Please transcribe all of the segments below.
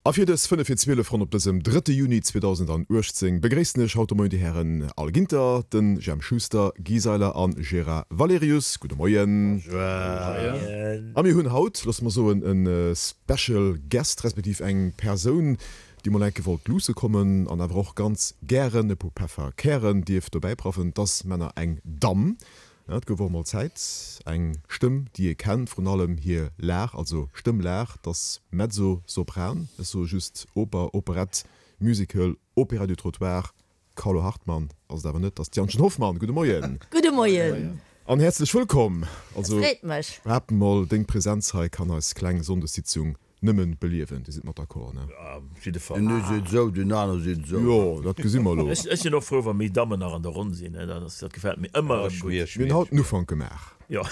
A fir dës 5 vir 12 ronn op dësem drëtte Juni 2018 begréissen ech haut de Moien déi Hären Al Ginter, den Jemp Schuster, Guy Seiler an Gérard Valerius. Gudde Moien. Moien. A mir hunn haut, loosse mer soen, e Special Guest, respektiv eng Persoun, déi mol enke wollt luusse kommen an awer och ganz gären e puer Pefferkären dierf dobäi praffen. 't ass Männer eng Damm. Et gouf och mol Zäit. Eng Stëmm, déi ee kennt, vrun allem hir Lag, also Stëmmlag, 't ass Mezzo-Sopran, ech soe just Oper, Operett, Musical, Opéra du Trottoir, Carlo Hartmann ass et awer net, 't ass d'Jantchen Hoffmann. Gudde Moien. Gudde Moien. An häerzlech wëllkomm. Also, Et freet mech. behaapten mol, deng Präsenz hei kann eis kleng Sonndessitzung Nëmmen beliewen, Dir sidd mat d'accord, ne? Ja, op jidde Fall. Den ee seet esou, den aner seet esou. Jo, dat gesi mer elo. Ech sinn och frou, wa méi Dammen nach an der Ronn sinn. Dat ass, dat gefält mir ëmmer erëm gutt. Mir hunn haut den Ufank gemaach. Jo.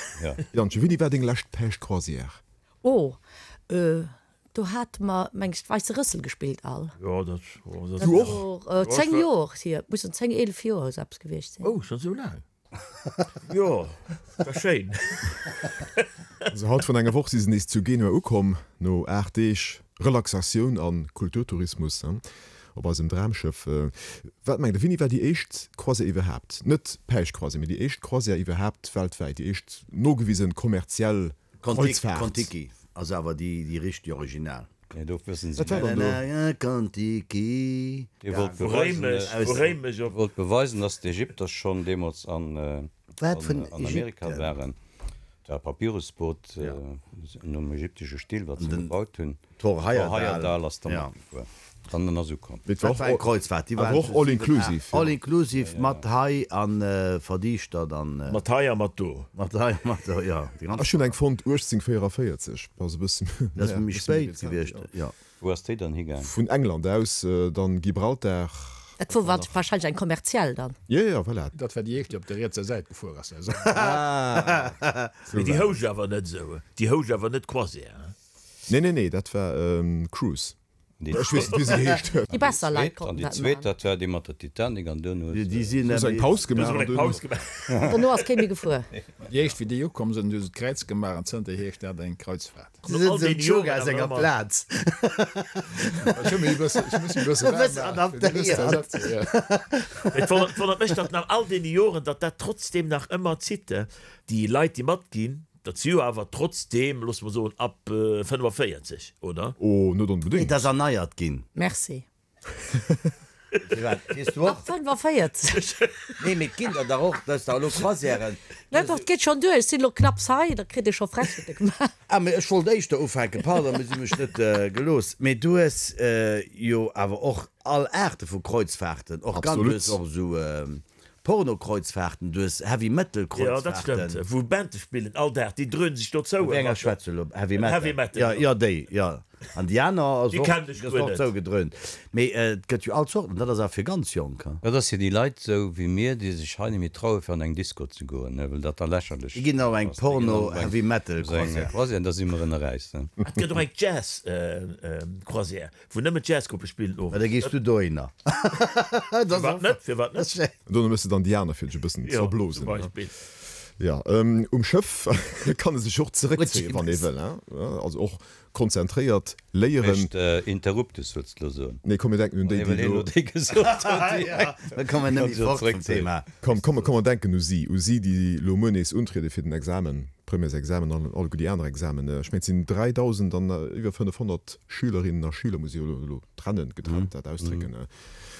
Jantje, wéini war deng lescht Päischtcroisière? Oh, do hate mer, meng ech, d'Weisse Rëssel gespillt all. Jo, dat, oh, dat. Du och? 10 Joer hier, et mussen 10, 11 Joer esou eppes gewiescht sinn. Oh, schonn esou laang? Jo, war schéin. Also haut vrun enger Woch si se nees zu Genua ukomm, no 8 Deeg Relaxatioun a Kulturtourismus op eisem Dramschëff. Wat mengt der, wéini war déi éischt Croisière iwwerhaapt, net d'Päischtcroisière, mee déi éischt Croisière iwwerhaapt weltwäit, déi éischt nogewisen kommerziell Kreuzfahrt? Kon-Tiki ass awer déi richteg Original. Nee, do wëssen se Wat war dann do? Kon-Tiki. Dir wollt beweisen, Dir wollt beweisen, dass d'Ägypter schonn deemools an Amerika waren. Dat war e Papyrusboot nom ägyptesche Stil, wat se gebaut hunn. Thor Heyerdahl ass da matgefuer an en ass ukomm. Dat war eng Kreuzfahrt, déi war och all inclusive. All inclusive mat Hai an Verdiichtert an. Mat hei a mat do. Mat hei a mat do, jo. Ech hunn eng fonnt, 1844, ass e bësse Dat ass méi spéit gewiescht, jo. Wou ass déi dann higaang? Vun England aus, dann Gibraltar. Dat wor wahrscheinlech eng kommerziell dann. Jo, jo, voilà. Dat war déi éischt, déi op der rietser Säit gefuer ass. Mee déi housch awer net esou, déi housch awer net Croisière, hein? Nee, nee, nee, dat war Cruise. Ech weess net, wéi se geheescht huet. Déi besser Leit konnten dat maachen. An déi zweet, dat war déi mat der Titanic an duerno huet se. Hu se eng Paus gemaach an duerno. Dono ass kee méi gefuer. Déi éischt, wéi déi ukomm sinn, hu se d'Kräiz gemaach an zënterhier heescht dat eng Kreuzfahrt. Se sinn dem Yoga senger Plaz. Ech hu mech e bëssen, ech muss mech e bësse waarm maachen, fir déi nächst Ersatzung, jo. Et wonnert mech, datt nach all deene Joren, datt dat trotzdem nach ëmmer zitt. Déi Leit, déi matginn, Dat si jo awer trotzdeem, loosse mer soen, ab 45, oder? Oh, net onbedéngt. Et ass erneiert ginn. Merci. Firwat? Weess du och? Ab 45. Nee, mee et ginn der dach och, dat ass dach elo Croisièren. Nee, dach, et geet schonn duer. Ech sinn elo knapps hei, da kritt ee scho Frechheete gemaach. Ah, mee ech wollt éischter ufänken, pardon, mee si hu mech net gelooss. Mee du hues jo awer och all Aarte vu Kreuzfahrten, och ganz, du hues och esou Porno-Kreuzfahrten, du hues Heavy Metal Kreuzfahrten. Jo, dat stëmmt, wou Bande spillen all Dag, déi dröhnen sech do zou. Wéi enger schwätz du elo? Heavy Metal? Heavy Metal, jo. Jo, déi, jo. An déi aner ass och, déi ass och zougedröhnt. Mee et gëtt jo all Zorten, dat ass awer fir ganz Jonk, ha? Dat ass fir déi Leit esou wéi mir, déi sech hei net méi traue fir an eng Disco ze goen, well dat da lächerlech Déi ginn op eng Porno Heavy Metal Croisière. Croisière, da si mer ënneräis, ne? Et gëtt och eng Jazz Croisière. Wou nëmmen Jazzgruppe spillen owes. Da gees du dohinner. Firwat net? Firwat net? Dono méchs de dann déi aner fir dech e bëssen ze verblosen. Jo, zum Beispill. Jo, um Schëff kann e sech och zeréckzéien, wann ee wëll, hein? Also och konzentréiert léieren. Mécht Interruptus, wëlls de elo soen? Nee, komm mir denken un déi, déi elo. Déi gesot huet, déi Da komme mir net méi fort vum Thema. Komm, komm, komm mer denken u si, u si, déi elo muer nees untriede fir den Examen, Premièresexamen an alleguer déi aner Examen. Ech mengen, et sinn 3.000 an iwwer 500 Schülerinnen a Schüler, muss ech jo elo trennen, getrennt dat ausdrécken.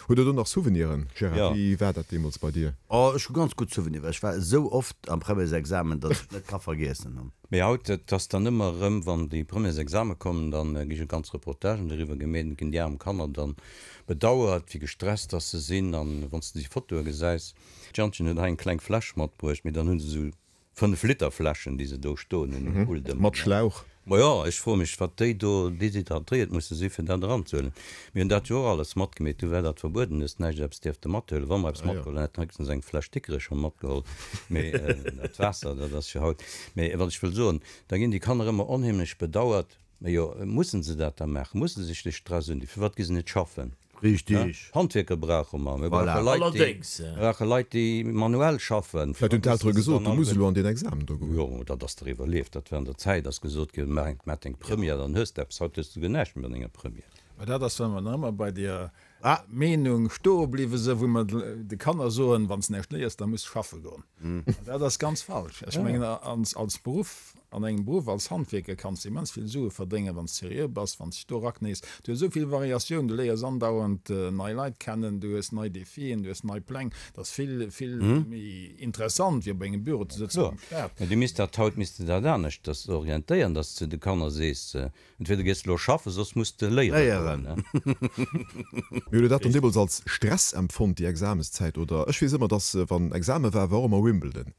Hutt Der do nach Souveniren, Gérard? Wéi war dat deemools bei dir? Oh, ech hu ganz gutt Souveniren, well ech war esou oft am Premièresexamen, datt ech net ka vergiessen hunn. Mee haut, et ass dann ëmmer erëm, wann déi Premièresexame kommen, da gi jo ganz Reportagen doriwwer gemeet, ginn déi aarm Kanner dann bedauert, wéi gestresst dass se sinn. An wann s de déi Fotoe gesäis, d'Jantchen huet hei eng kleng Fläsch matbruecht, mee dann hu se esou 5 Liter Fläschen déi se do stoen hunn um Pult ëmmer. Mat Schlauch. Majo, ech froe mech wat déi do deshydratéiert musse si fir dat eranzehuelen. Mir hunn dat jo och alles matgemeet, du war dat verbueden, hues näischt eppes dierfte mathuelen. Wa mer eppes matgeholl hunn, hätte mer héchstens eng Fläsch Dikrech matgeholl, mee dat Waasser, dat ass jo haut. Mee wat ech wëll soen, da ginn déi Kanner ëmmer onheemlech bedauert. Mee jo, mussen se dat da maachen? Musse se sech de Stress undinn? Firwat gi se net schaffen? Richtig. Handwierker brauche mer. Mir brauche Leit, déi, mir brauche Leit, déi manuell schaffen. Vläicht hunn d'Eltere gesot, du muss elo an deen Examen do goen. Jo, dat ass der iwwerlieft. Dat war an der Zäit, ass gesot ginn, maach deng Première, dann hues de eppes. Haut hues de guer näischt méi mat enger Première. Mä dat ass, wa mer nach ëmmer bei deer Meenung stoe bliwwe sinn, wou mer de Kanner soen, Wann s näischt léiers, da muss s schaffe goen. An dat ass ganz falsch. Ech mengen, als Beruff, an engem Beruff als Handwierker kanns de immens vill Sue verdéngen, wann s seriö bass, wann s dech do eraknéis. Du hues esou vill Variatioun, du léiers andauernd nei Leit kennen, du hues nei Defien, du hues nei Pläng. Dat ass vill, vill méi interessant, wéi op engem Büro ze sëtzen am Staat. Mä du misst dat haut misst de dat aneschters orientéieren, dass s de de Kanner sees, Entweder gees de lo schaffen, soss muss de léieren goen. Mir hunn dat dann deemools als Stress empfonnt, déi Examenszäit, oder? Ech weess ëmmer, dass wann Exame war, war och ëmmer Wimbledon.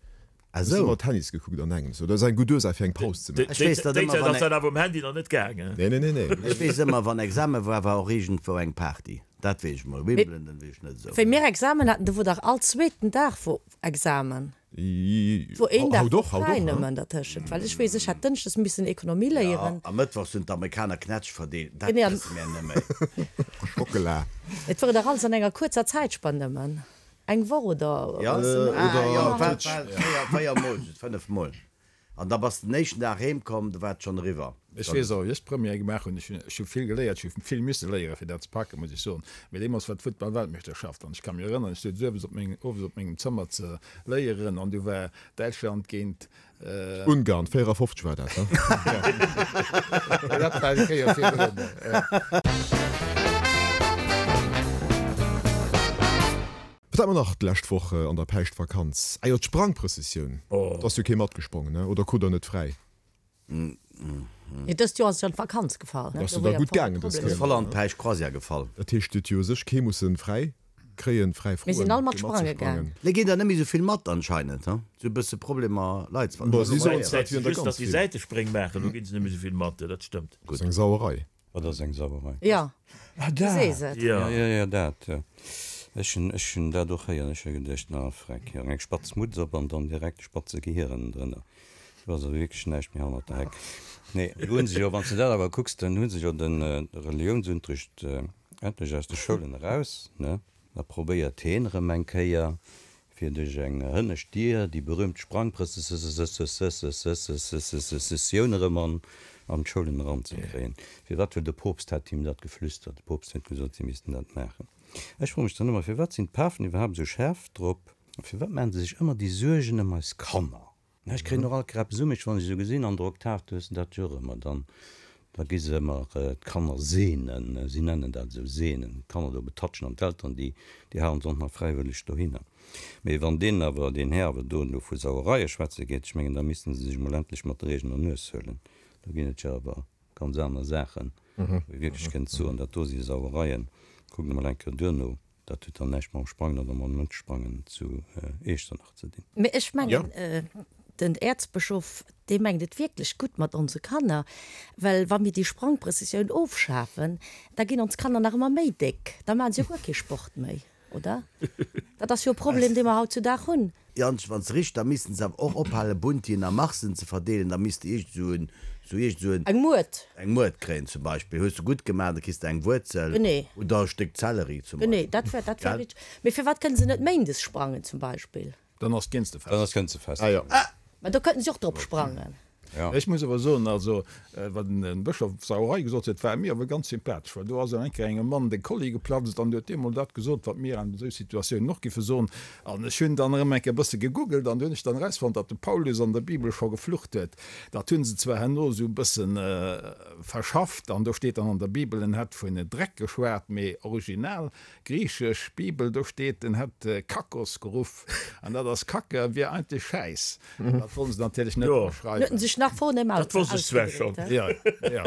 Ah Ech hu sou. ëmmer Tennis gekuckt an engems. Oder ass eng gutt Ursaach fir eng Paus ze maachen. Ech weess dat Déi ëmmer Zäit wann ass dat awer um Handy nach net gaangen. Nee, nee, nee, nee. Ech weess ëmmer wann Exame war, war och iergendwou eng Party. Dat weess ech mol. Wimbledon weess ech net esou. Wéi mir Examen haten, do wor dach all zweeten Dag wor Examen. Wor een Dag wor fräi nëmmen dertëschent, well ech weess, ech hat dënschdes missen Ekonomie léieren. Jo, a mëttwochs hunn d'Amerikaner Knätsch verdeelt. Dat wësse mir net méi. Schockela. Et wor dach alles an enger kuerzer Zäitspann nëmmen eng Woch oder Jo, e bësse méi. ah jo, war 4 mol, just 5 mol. An da bass de den éischten Dag heem komm, do war et schonn eriwwer. Ech weess och, wéi ech d'Première gemaach hunn. Ech hunn, ech hu vill geléiert, ech hu vill misse léieren, fir dat ze packen, muss ech soen. Mee deemools war d'Futtball-Weltmeeschterschaft an ech ka mech erënneren, ech souz owes op meng, owes op mengem Zëmmer ze léieren an du war Däitschland géint. Ungarn, 54 war dat, ne? Dat war eng Kéier virdrun, jo. Wat hat mer nach d'lescht Woch an der Päischtvakanz? Ah jo, d'Sprangprëssessioun. Do ass jo kee matgesprongen, ne? Oder krut der net fräi? Nee, dëst Joer ass et jo an d'Vakanz gefall. Ass jo da gutt gaangen dës Kéier. Ass voll an d'Päischtcroisière gefall. Dat heescht, et huet jo u sech kee mussen fräi kréien, fräi Mir froen, sinn all mat fir sprange gaang. matzesprangen. Lei ginn der net méi sou vill mat anscheinend, he? Sou e bësse Problemer Leit ze Bon, si soen zwar, et Just, wieren der ganz datt déi vill. Säitespréng maachen, do ginn se net méi sou vill mat, dat stëmmt. Dat ass eng Sauerei. Wat ass eng Sauerei? Jo, Ah, du dat! sees et. Jo, jo, jo, dat, jo. Ech hunn, ech hunn dat och héieren. Ech hu geduecht, na freck, jo, eng spatz Mutz op an dann direkt e spatze Gehier ënnendrënner. Do ass awer wierklech näischt méi hannert der Heck. Nee, do hu se jo, wann s de dat awer kucks, dann hu se jo de Reliounsunterricht endlech aus de Schoulen eraus, ne? Da probéiert heen erëm eng Kéier, fir duerch eng hënnescht Dier déi berühmt Sprangprëssessioun erëm an d'Schoulen eranzekréien. Firwat? Well de Poopst hat him dat geflüstert. De Poopst huet gesot, si missten dat maachen. Ech froe mech dann ëmmer, firwat sinn d'Pafen iwwerhaapt esou schaarf drop? Firwat maachen se sech ëmmer déi Suergen ëm eis Kanner? Ech kréien och alt Krepp Summeg, wann ech esou gesinn an der Oktav, du hues dat jo och ëmmer, dann da gi se ëmmer d'Kanner seenen, si nennen dat esou seenen, d'Kanner do betatschen an d'Elteren déi déi halen se och nach fräiwëlleg dohinner. Mee wann deen awer, deen Här awer do elo vu Sauereie schwätze geet, ech mengen da missten se sech emol endlech mat der eegener Nues huelen, do ginn et jo awer ganz aner Saachen, wou ee wierklech kënnt soen, dat do si Sauereien, kuckt emol eng Kéier duerno. Dat huet dann näischt mam Sprangen oder mam Net-Sprangen zu Iechternach ze dinn. Mee ech mengen, den Äerzbëschof, dee mengt et wierklech gutt mat onse Kanner, well wa mir déi Sprangprëssessioun ofschafen, da ginn ons Kanner nach ëmmer méi déck, da maache se jo guer kee Sport méi, oder? Dat ass jo e Problem, dee mer hautzudag hunn. Jantsch, wann se richt, da missten se awer och ophalen Buntien a Marsen ze verdeelen, da misst de iergend esou en, esou iergend esou en. Eng Muert. Eng Muert kréien zum Beispill. Hues de gutt gemaach, da kriss de eng Wuerzel. Genee. Oder e Stéck Zellerie zum Beispill. Genee, dat wär, dat wär richteg. Mee firwat kënne se net méindes sprangen zum Beispill? Dann ass d'Génstefest. Dann ass d'Génstefest. Ah jo. Mä do kënnten se och drop sprangen. Ech muss awer soen, also wat den Bëschof Sauerei gesot huet, war mir awer ganz sympathesch, well do ass eng Kéier engem Mann de Kolli geplatzt an huet deemol dat gesot, wat mir an esou Situatiounen och giffe soen. An ech hunn dann erëm eng Kéier e bësse gegoogelt an do hunn ech dann erausfonnt, datt de Paulus an der Bibel scho geflucht huet. Dat hu se zwar herno esou e bësse verschafft an do steet dann an der Bibel, en hätt vun Dreck geschwat, mee original griichesch Bibel, do steet, en hätt Kakos geruff an dat ass Kacke, wier eigentlech Schäiss. Dat wollen se natierlech net dra schreiwen. Huet en sech nach vornehm Dat wosst ech zwar schonn. Jo, jo.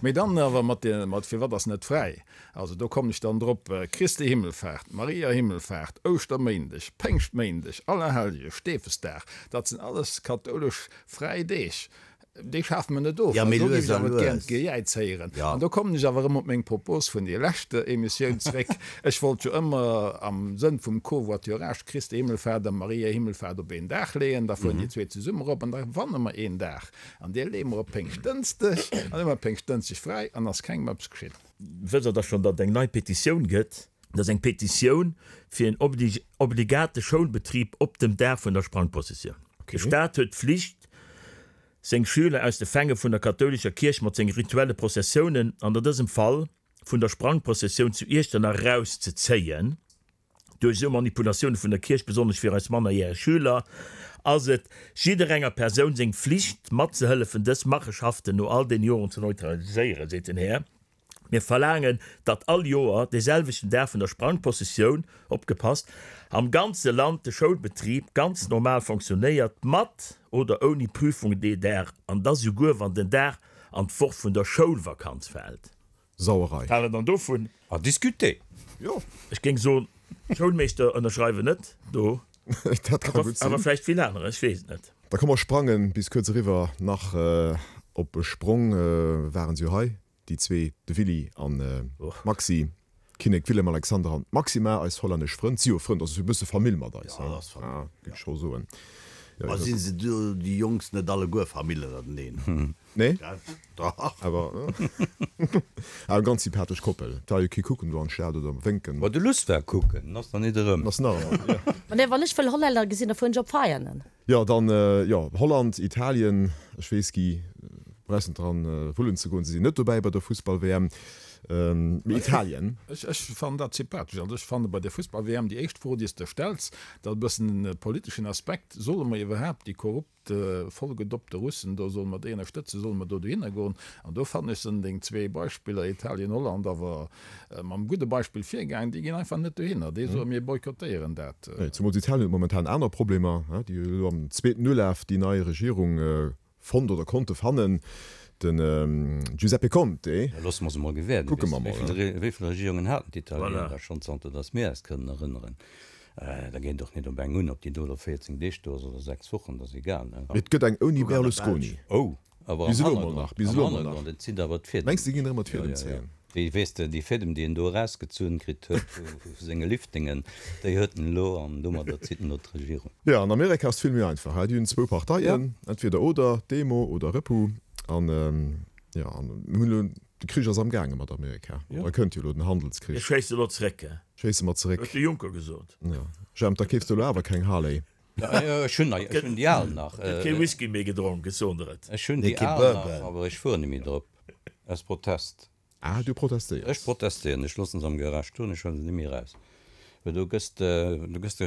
Mee dann awer mat de, mat firwat ass net fräi? Also do kommen ech dann drop, Christi Himmelfaart, Maria Himmelfaart, Ouschterméindeg, Péngschtméindeg, Allerhellge, Stefesdag, dat sinn alles kathoulesch fräi Deeg. Déi schafe mer net of. Ja, mee An do lues géif ech a awer gären lues. d'Gejäiz héieren. Ja. An do kommen ech awer erëm op meng Propos vun der leschter Emissioun zréck. Ech wollt jo ëmmer am Sënn vum Covoiturage Christi Himmelfahrt a Maria Himmelfahrt op een Dag leeën. Da fueren déi zwee zesumme erop an da gewanne mer een Dag. An dee leeë mer op Péngschtdënschdeg. An da hu mer Péngschtdënschdeg fräi an ass kengem eppes geschitt. Wësst Der da schonn, datt et eng nei Petitioun gëtt? Dat ass eng Petitioun fir en obligate Schoulbetrib op dem Dag vun der Sprangprozessioun. De Staat huet d'Flicht, seng Schüler aus de Fänge vun der kathoulescher Kierch mat senge rituelle Prozessiounen, an an dësem Fall. vun der Sprangprozessioun zu Iechternach erauszezéien. Duerch esou Manipulatioune vun der Kierch, besonnesch fir eis mannerjäreg Schüler, ass et jidderenger Persoun seng Flicht, matzehëllefen, dës Macheschaften no all deene Joren ze neutraliséieren, seet den Här. Mir verlaangen, datt all Joer dee selwechten Dag vun der Sprangpossessioun, opgepasst, am ganze Land de Schoulbetrib ganz normal fonctionnéiert, mat oder ouni Prüfung dee Dag, an da souguer wann den Dag an d'Woch vun der Schoulvakanz fält. Sauerei. Wat hale dann dovun? À discuter! Jo. Ech géing soen, d'Schoulmeeschter ënnerschreiwen net do. Dat ka gutt sinn. Awer vläicht vill anerer, ech weess et net. Da komm mer sprangen bis kuerz eriwwer nach op e Sprong. Waren se jo hei, déi zwee, de Willy an d'Maxi, Kinnek Willem Alexander an d'Maxima, eis hollännesch Frënn. Si jo Frënn, dat ass jo e bësse Famill mat eis, Jo, dat ass Famill, géif ech scho soen. Ma si se do, déi Jongs, net alleguer Famill ënnerteneen? Nee? Dach. Awer eng ganz sympathesch Koppel. Et war jo kee kucken do an d'Stad oder wénken. Ma de Luss war kucken, en ass nach nit erëm. En ass nach erëm, jo. Ma nee, wann ech wëll Hollänner gesinn, da fueren ech op Veianen. Jo, dann, jo, Holland, Italien, ech weess, Guy, brauchs net dran wullen ze goen, se sinn net dobäi bei der Fussball-WM, mee Italien. Ech, ech fannen dat sympathesch. Also ech fanne bei der Fussball-WM déi éischt Fro, déi s de stells, dat e bëssen e politeschen Aspekt, Solle mer iwwerhaapt déi korrupt, vollgedoppte Russen do, solle mer déi ënnerstëtzen, solle mer do dohinner goen? An do fannen ech sinn deng zwee Beispiller, Italien, Holland, awer mam gudde Beispill virgaangen, déi ginn einfach net dohinner, déi soen, mir boykottéieren dat. Nee, zemools Italien huet momentan aner Problemer, déi hu elo am zweeten Ulaf déi nei Regierung fonnt oder konnte fannen, den Giuseppe Conte. Da loosse mer se mol gewäerden. Kucke mer mol. Wéi vill Regierungen haten d'Italiener da schonn, zanter datt mir eis kënnen erënneren? Da geet et och net op eng un, ob déi do elo 14 Deeg do ass oder 6 Wochen, dat ass egal, ne? Et gëtt eng ouni Berlusconi. Oh, awer am Hannergrond, am Hannergrond, et zitt awer d'Fiedem. Mengs de, ginn erëm mat Fiedem zéien? Déi, weess de, déi Fiedem, déi en do erausgezunn kritt huet vu senge Liftingen, déi huet en elo an domadder zitt en elo d'Regierung. Jo, an Amerika ass et vill méi einfach, hei, déi hunn zwou Parteien, entweder oder, Demo oder Repu. An, jo, an mir hunn elo, de Krich ass amgaange mat Amerika, da kënnt jo elo den Handelskrich. Mir schéisse elo zeréck, he? Schéisse mer zeréck. Huet de Juncker gesot. Jo, Jemp, da keefs de elo awer keng Harley. Ech hunn ech hunn déi al nach. Gëtt kee Whisky méi gedronk, ech soen der et. Ech hunn déi al nach, awer ech fueren net méi drop. Aus Protest. Ah, du protestéiers. Ech protestéieren. Ech loossen se am Garage stoen, ech huelen se net méi eraus. Well do gëss de, do gëss de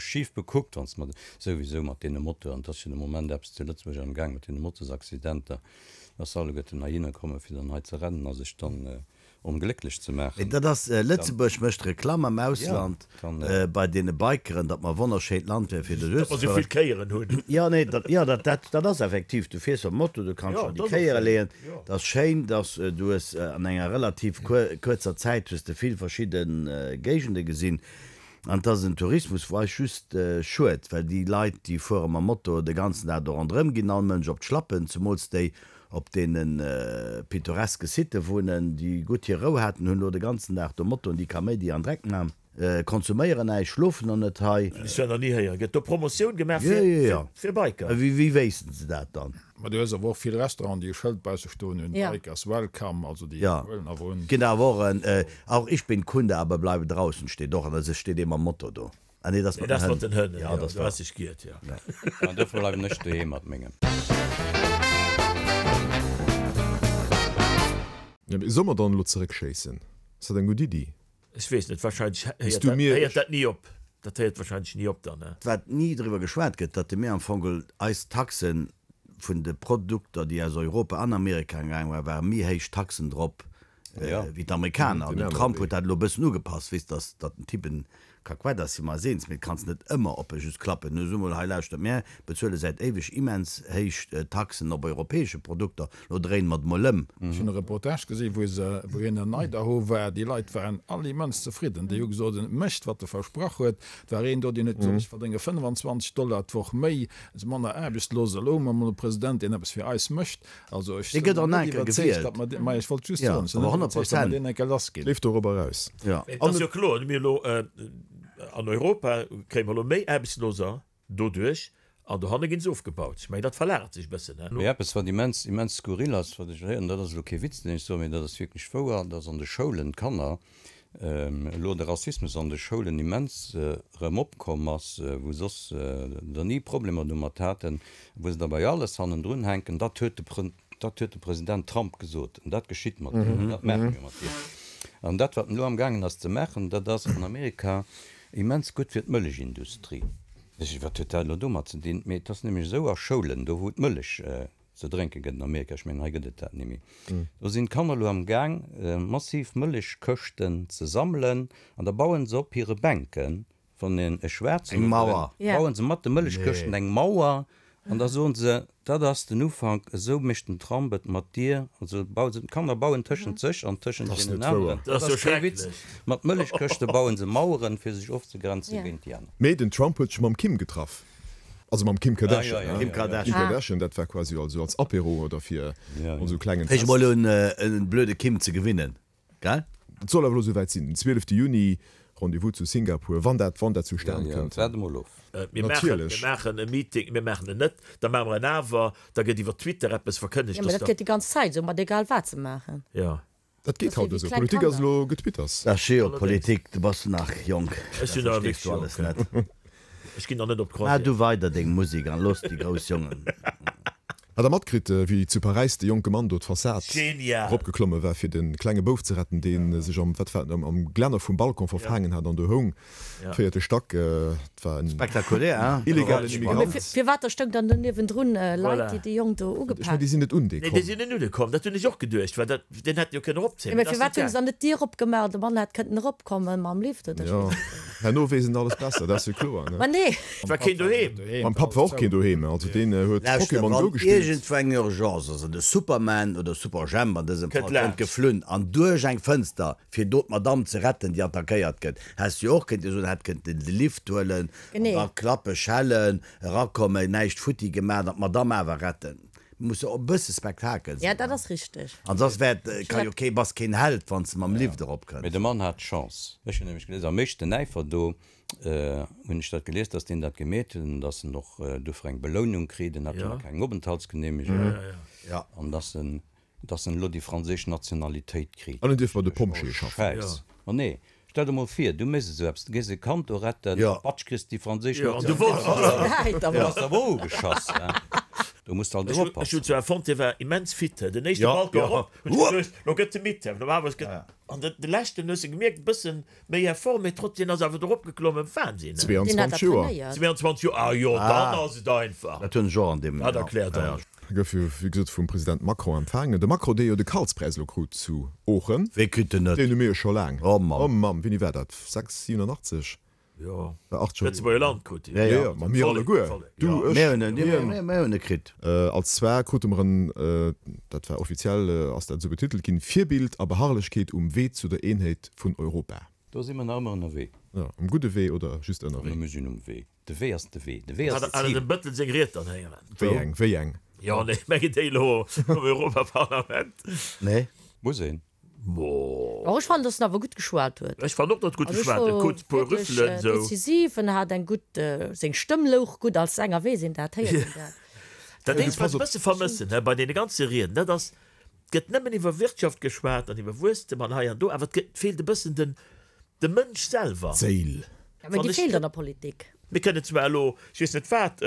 schif bekuckt, wann s de mat, souwisou mat deene Motoren, et ass jo de Moment eppes zu Lëtzebuerg am Gaang mat deene Motosaccidenter, dass alleguerten heihinner kommen, fir dann hei ze rennen a sech dann onglécklech ze Mee maachen. dat ass, Lëtzebuerg mécht Reklamm am Ausland bei deene Bikeren, datt mer e wonnerschéint Land wäre fir Datt mer esou vill Kéieren hunn. Jo, nee, dat, jo, dat, dat, dat ass effektiv, du fiers mam Moto, du kanns schonn déi Kéiere leeën, dat ass schéin, dass du hues an enger relativ kuerzer Zäit hues de vill verschidde Géigende gesinn. An et ass en Tourismus, wou eis just schued, well déi Leit, déi fuere mam Moto de ganzen Dag do ronderëm, ginn all Mënsch op d'Schlappen, zemools déi op deene pittoreske Sitë wunnen, déi gutt hir Rou haten, hunn elo de ganzen Dag do Motoen, déi Kaméidi an Dreck man, konsuméieren näischt, schlofen och net hei. Ech war nach ni héier. Gëtt do Promotioun gemaach fir Biker? Wéi wéissten se dat dann? Ma du hues awer och vill Restauranten, déi e Schëld bausse stoen hunn, Bikers welcome, also déi huelen awer un. Ginn awer och en Auch ich bin Kunde, aber bleibe draußen steet och an der, steet ee mam Motto do. Ah nee, dat ass mat den Hënn. Jo, dat ass sech giert, jo. An dofir bleiwen ech doheem mat mengem. Jo, mee solle mer dann elo zeréckschéissen? Ass dat eng gutt Iddi? Ech weess net, wahrscheinlech héiert dat ni op. Dat héiert wahrscheinlech ni op dann, ne? Wat ni driwwer geschwat gëtt, datt de mir am Fong eis Taxen vun de Produkter, déi aus Europa an Amerika gaange waren, ware méi héich Taxen drop wéi d'Amerikaner. An den Trump huet dat elo e bëssen ugepasst, weess, datt datt den Typ en Kakuett ass, si mer eis eens, mee et kanns net ëmmer op e just klappen. Nu so mol, hei lauschtert, mär bezuele säit éiweg immens héich Taxen op europäesche Produkter, lo dréine mer et mol ëm. Ech hunn e Reportage gesi wou se, wou hien an Idaho war, déi Leit waren all immens zefridden. Déi hu gesot, en mécht wat e versprach huet. Et war een do, deen huet gesot, ech verdénge 25 Dollar d'Woch méi, si manner aarbechtslos. Elo hu mer emol e President, deen eppes fir eis mécht. Also ech Dee sinn gëtt och net nach eng Kéier iwwerzeegt, gewielt. datt mer dee, ma ech wollt just Ja, soen, ech sinn awer net 100 iwwerzeegt, datt mer Prozent. deen eng Kéier lass ginn. Leeft dorobber eraus. Ja. Et ass jo kloer, mir elo an Europa kréie mer elo méi Aarbechtsloser doduerch an dohanne ginn se ofgebaut. Ech mengen, dat verlagert sech e bëssen. Mee eppes, wat immens, immens skurril ass, wat ech héieren, dat ass elo kee Witz, deen ech soen, mee dat ass wierklech wouer, dass an de Schoulen d'Kanner, elo de Rassismus an de Schoulen immens erëm opkomm ass, wou soss der ni Problemer domat haten, wou se da bei alles hannendrun hänken, dat huet de, dat huet de President Trump gesot an dat geschitt mat deem an dat maache mir mat deem. An dat, wat en elo amgaangen ass ze maachen, dat ass an Amerika immens gutt fir d'Mëllechindustrie. Wat huet dat elo domat ze dinn? Mee et ass nämlech esou, a Schoulen, do wou d'Mëllech ze drénke gëtt an Amerika, ech mengen hei gëtt et dat net méi, do sinn d'Kanner elo amgaang massiv Mëllechkëschten ze sammelen an da bauen se op hire Bänken Wann een e schwaarzen Eng Mauer. Bauen se mat de Mëllechkëschten eng Mauer an da soen se, dat ass den Ufank, esou mécht den Trump et mat dir. Also bauen se, d'Kanner bauen tëschent sech an tëschent deenen aneren. Dat ass jo kee Witz. Mat Mëllechkëschte bauen se Maueren, fir sech ofzegrenzen géint déi aner. Mee den Trump huet sech mam Kim getraff. Also mam Kim Kardashian. Kim Kardashian. Kim Kardashian, dat war quasi also als Apéro oder fir also klengen Fänk mol un en blöde Kim ze gewinnen. Gell? Et soll awer elo souwäit sinn, den 12 Juni, Rendez-vous zu Singapur, wann dat, wann dat zustan kënnt. Waart emol of. Mir maachen, mir maachen e Meeting, mir maachen en net, da maache mer en awer, da gëtt iwwer Twitter eppes verkënnegt, Jo, mä dat geet déi ganz Zäit esou, mat egal wat se maachen. Jo. Dat geet haut esou. Politik ass elo Getwitters. Ach jo, Politik, du bass nach jonk, Ech dat sinn nach verstees wierklech du alles jonk. net. Ech ginn nach net op Maach d'Croisière. du weider deng Musek an looss déi grouss Jongen. Hat der matkritt, wéi zu Paräis de jonke Mann do d'Fassad Genial! eropgeklomme war, fir de klenge Bouf ze retten, dee sech am, wat war et, am Glänner vum Balcon verfaangen hat an do houng, véierte Stack. Et war en Spektakulär, hein? illegalen Immigrant. Mee firwat da stoung dann do niewendrun Leit, déi de Jong do Ech mengen, ugepak. déi sinn net un dee Nee, komm. déi sinn net un e komm. Dat hunn ech och geduecht, well dat, deen hätt jo kënnen eropzéien. Jo, Mee mee dat ass firwat net hunn se gaang. dann net d'Dier opgemaach an de Mann hätt kënnten eropkommen mam Lift oder ech Jo, weess net wéi. herno weess en alles besser, dat ass jo kloer, ne? Ma nee! Et war keen doheem. Mam Papp war och keen doheem, also deen huet Lauschter, Pokémon Go wann gespillt. iergendwou eng Urgence ass an de Superman oder Superjhemp an dësem Kënnt Fall kënnt laanscht. geflunn an duerch eng Fënster fir do d'Madame ze retten déi attackéiert gëtt, häss du jo och kënnte soen, hätt kënnten de Lift huelen an Genee. da klappe, schellen, erakommen, näischt futti gemaat an d'Madame awer retten. Muss jo och e bësse Spektakel Ja, sinn. dat ass richteg. An soss wär et, ka jo kee, bass keen Held wann s de mam Lift erop Mee kënns. de Mann hat Chance. Ech hunn nämlech gelies, am éischten Äifer do hunn ech dat gelies, datt deen dat gemeet huet an datt en och dofir eng Belounung kritt, en hat jo nach keng Openthaltsgenehmegung, an datt en, datt en elo déi franséisch Nationalitéit kritt. An en dierf bei de Pompjeeë schaffen. Schäiss. Ma nee, stell der mol vir, du méchs esou eppes, du gees e Kand do retten, patsch, kriss déi franséisch Nationalitéit. Du bass awer ugeschass, hein. Do muss de alt Ech hunn oppassen. zwar fonnt, hie war immens fit, den éischte Balcon erop, hunn ech geduecht, lo gëtt e midd, normalerweis gëtt, an de leschten hues de gemierkt, e bëssen Méi Effort, mee trotzdem ass awer dorop geklommen. Wahnsinn, he? 22 Joer. 22 Joer, ah jo, dann ass et einfach. Dat hunn ech och an deem. Dat erkläert alles. Gouf jo wéi gesot vum President Macron empfaangen. De Macron, dee jo de Karlspräis elo krut zu Oochen. Wee kritt en net? Deen hu mir jo scho laang. Oh Mamm. Oh Mamm, wéini war dat? 6, 87? Jo, War 8 scho. Lëtzebuerger Land krut deen. Jo, jo, ma mir alleguer. Du, ech, Mir hunn en, hien. mir hunn e kritt. Als zwar krute mer en, dat war offiziell ass dat esou betitelt ginn, Virbild a Beharrlechkeet um Wee zu der Eenheet vun Europa. Do si mer nach ëmmer ënnerwee. Jo, um gudde Wee oder just ënnerwee? Mir sinn um Wee. De Wee ass de Wee. De Wee ass Hat d'Zil. dem Bëttel seng Ried dann héieren? Wéi eng? Wéi eng? Jo, nee, ech mengen déi elo am Europaparlament. Nee. Muss een. Mo. Oh, ech fannen, dass en awer gutt geschwat huet. Ech fannen och, datt gutt Also ech geschwat huet. wor Kuerz puer wierklech Rüffelen esou. decisiv, en hat eng gutt, seng Stëmm louch gutt, als Sänger weess een dat, héiert een dat. Dat eenzegt, wat ech e bësse vermëssen, hä, bei deene ganze Rieden, dat ass, et gëtt nëmmen iwwer Wirtschaft geschwat an iwwer Wuesstem an hei an do, awer et gëtt, feelt e bëssen den, de Mënsch selwer. D'Séil. Ja, mä Wann déi ech. feelt an der Politik. Mir kënnen zwar elo, ech weess net wat,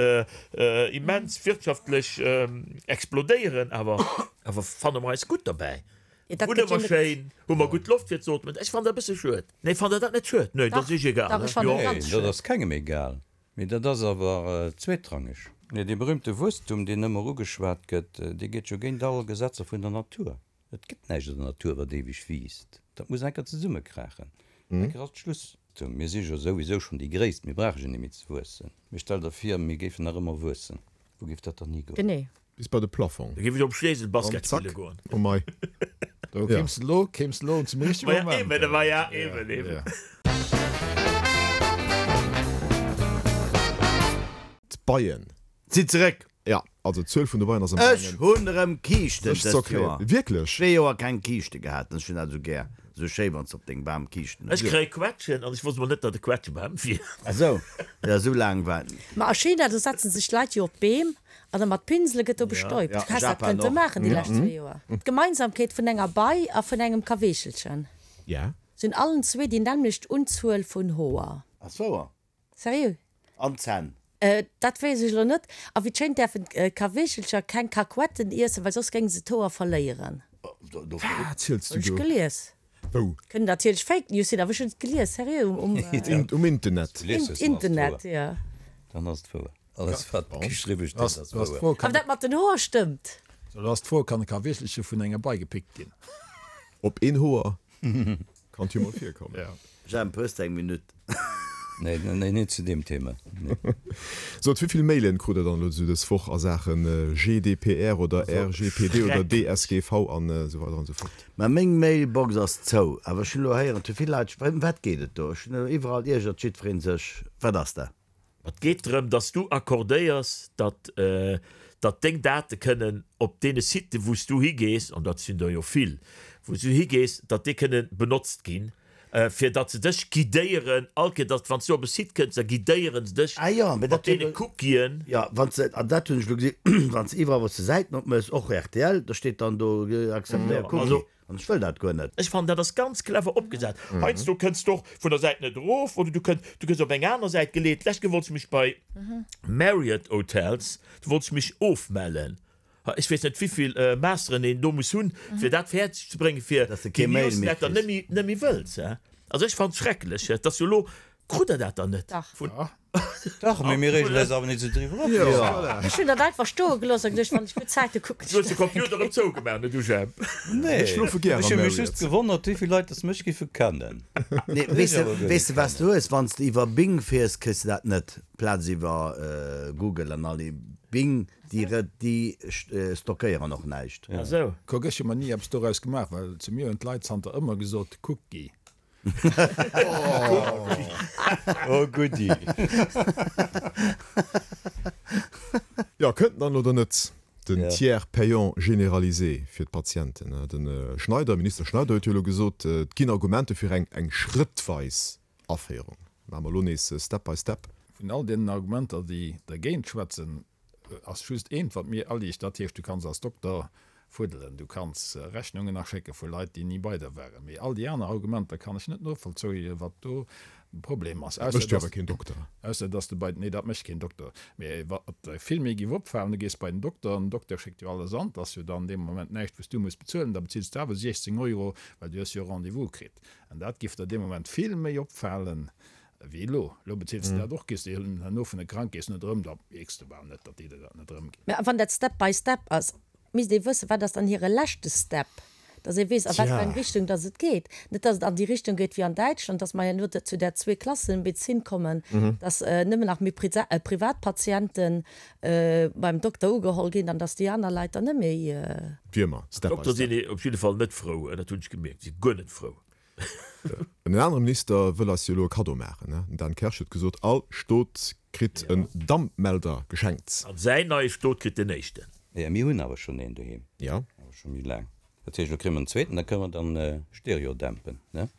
immens wirtschaftlech explodéieren, awer, awer fanne mer eis gutt derbäi? Ja, dat Wunne gëtt jo mer net. schéin? Hu mer gutt Loft fir ze ootmen? Ech fannen dat e bësse schued. Nee, fannt Der dat net schued? Nee, dat ass Dach, Iech egal, dach, ne? ech fannen Jo. et Nee, ganz dat schued. ass kengem egal. Mee dat ass awer zweetrangeg. Nee, dee berühmte Wuesstum, deen ëmmer ugeschwat gëtt, dee geet jo géint all Gesetzer vun der Natur. Et gëtt näischt an der Natur, wat éiweg wiisst. Dat muss eng Kéier zesummekraachen. Eng Kéier ass Schluss. Mir si jo souwisou schonn déi Gréisst, mir brauche jo net méi ze wuessen. Mee stell der vir, mir géifen nach ëmmer wuessen. Wou géif dat dann higoen? Genee. Bis bei de Plafong. Da géif ech op Schleesel An Basket zack. spille goen. Oh mei. Do kéims de lo, kéims de lo zum richtege Maja, Moment. eben, maja, eben, eben. D'Beien. Si zeréck! Ja, also d'Zuel vun de Beien ass am Ech gaangen hunn erëm Kiischten sech ze dëst erklären. Joer. Wierklech? Zwee Joer keng Kiischte gehat an ech hunn dat esou gär. Esou schéi wann s de op dengem Bam Kiischten Ech hues. kréie Quetschen an ech wosst mol net, datt e Quetschebam wier. Ah sou, jo esou laang war et. Ma a China, do setzen sech d'Leit jo op d'Beem an da mat Pinsele gëtt do bestäubt. Ja, Du häss dat Japan kënnte och. maachen déi lescht zwee Joer. D'Gemeinsamkeet vun enger Bei a vun engem Kaweechelchen. Ja. Se hunn allen zwee déi nämmlecht Unzuel vun Hoer. Ass wouer. Seriö? An d'Zänn. Dat weess ech elo net. A wéi et schéint däerfen d'Kaweechelcher keng Kakuetten iessen, well soss géinge se d'Hoer verléieren. Wat ziels du Hunn ech do? gelies. Wou? Kënnen natierlech Fake News sinn, awer ech hunn et gelies, seriö, um. Um Internet. Internet, jo. Dann ass et wouer. Alles wat geschriwwe steet ass wouer. Awer dat mat den Hoer stëmmt. Lo ass d'Fro, Kann e ka wierklech vun enger Bei gepickt ginn? Op een Hoer kann et jo mol virkommen. Jemp, hues de eng Minutt? Nee, nee, net zu deem Thema. Nee. Sot, wéi vill Mailen krut der dann elo esou dës Woch a Saache GDPR oder RGPD oder DSGV an esou weider an esou fort? Mä meng Mailbox ass zou. Awer ech hunn elo héieren, et hu vill Leit, ëm wat geet et do? Ech hunn elo iwwerall iergert jiddweree sech. Wat ass dat? Et geet drëm, dass du accordéiers, datt, datt deng Date kënnen op deene Siten, wou s du higees, an dat sinn der jo vill, wou s du higees, datt déi kënnen benotzt ginn, fir datt se dech guidéieren all Kéier, datt wann s du op e Site kënns, da guidéiere se dech Ah jo, mee mat dat hunn deene Cookien. Jo, wann s de, an dat hunn ech elo gesinn, wann s de iwwerall, wou s de Säiten opméchs, och rtl, da steet dann do, acceptéier Cookie. An ech wëll dat guer net. Ech fannen dat ass ganz clever opgesat. Heiansdo kënns de och vun der Säit net erof oder du kënns, du gëss op eng aner Säit geleet. D'lescht Kéier wollt ech mech bei Marriott Hotels, do wollt ech mech ofmellen. Ech weess net wéivill Masteren een do muss hunn fir dat fäerdeg ze bréngen fir Dass de déi kee Mail méi Newsletter kriss. net méi, net méi wëlls. Also ech fannen et schrecklech. Et ass jo elo, krut der dat dann net Dach. vun. Dach, mee mir reegen eis awer net esou driwwer op. Jo, voilà. Ech hunn dat einfach stoe gelooss a geduecht, wann ech gutt Zäite kucken Du hues de Computer erëm zougemaach, ne du Jemp? Nee, Ech schlofe gär ech am hu mech Marriott. just gewonnert, wéi vill Leit dass mech géife kennen. Nee, weess de, weess de wat s du hues? Wann s de iwwer Bing fiers, kriss de dat net. Plaz iwwer Google an all déi Bing, déi re, déi stockéieren och näischt. Ah sou. Kuck, ech hu mer ni eppes doraus gemaach, well zu mir hunn d'Leit zanter ëmmer gesot, Kucki. Oh goodie. Jo, kënnt en dann oder net, den Tiers payant généralisé fir d'Patienten? De Schneider, Minister Schneider huet jo elo gesot, et ginn Argumente fir eng eng schrëttweis Aféierung. Maache mer elo nees step by step. Vun all deenen Argumenter, déi dergéint schwätzen, Ass just eent wat mir aliicht, dat heescht du kanns als Dokter fuddelen, du kanns Rechnungen aschécke vu Leit déi ni bei der waren. Mee all déi aner Argumenter kann ech net novollzoien, wat do de Problem ass, Dat mécht jo awer keen Dokter. Ausser dass de bei, nee dat mécht keen Dokter, mee wat der vill méi géif opfalen, du gees bei den Dokter an den Dokter schéckt jo alles an, 't ass jo dann dee Moment näischt wou s du muss bezuelen, da bezills de awer 16 Euro, well du hues jo e Rendez-vous kritt. An dat géif der dee Moment vill méi opfalen, Wéi elo. Elo bezils de dat och, gees de herno vun de Krankeess net erëm, da mierks de bal net, datt déi der dat net erëmginn. Mä wann dat Step by Step ass, misst ee wëssen, wat ass dann hire leschte Step, datt ee weess, a wat fir eng Richtung datt et geet. Net datt et an déi Richtung geet wéi an Däitschland, datt mer herno zu där Zweeklassenmedezin kommen, datt nëmmen nach méi Privatpatiente beim Dokter ugeholl ginn an datt déi aner Leit dann net méi. Wéi ëmmer, Step by D'Dokter Step. sinn op jidde Fall net frou, dat hunn ech gemierkt, si guer net frou. En anere Minister wëll eis jo elo e Kaddo maachen. Den Dan Kersch huet gesot, all Stot kritt en Dampmelder geschenkt. An säin neie Stot kritt den éischten. Jo, mir hunn awer schonn een doheem. Jo. Awer scho méi laang. Dat heescht, elo kréie mer en zweeten, da kënne mer dann Stereo dämpen, ne?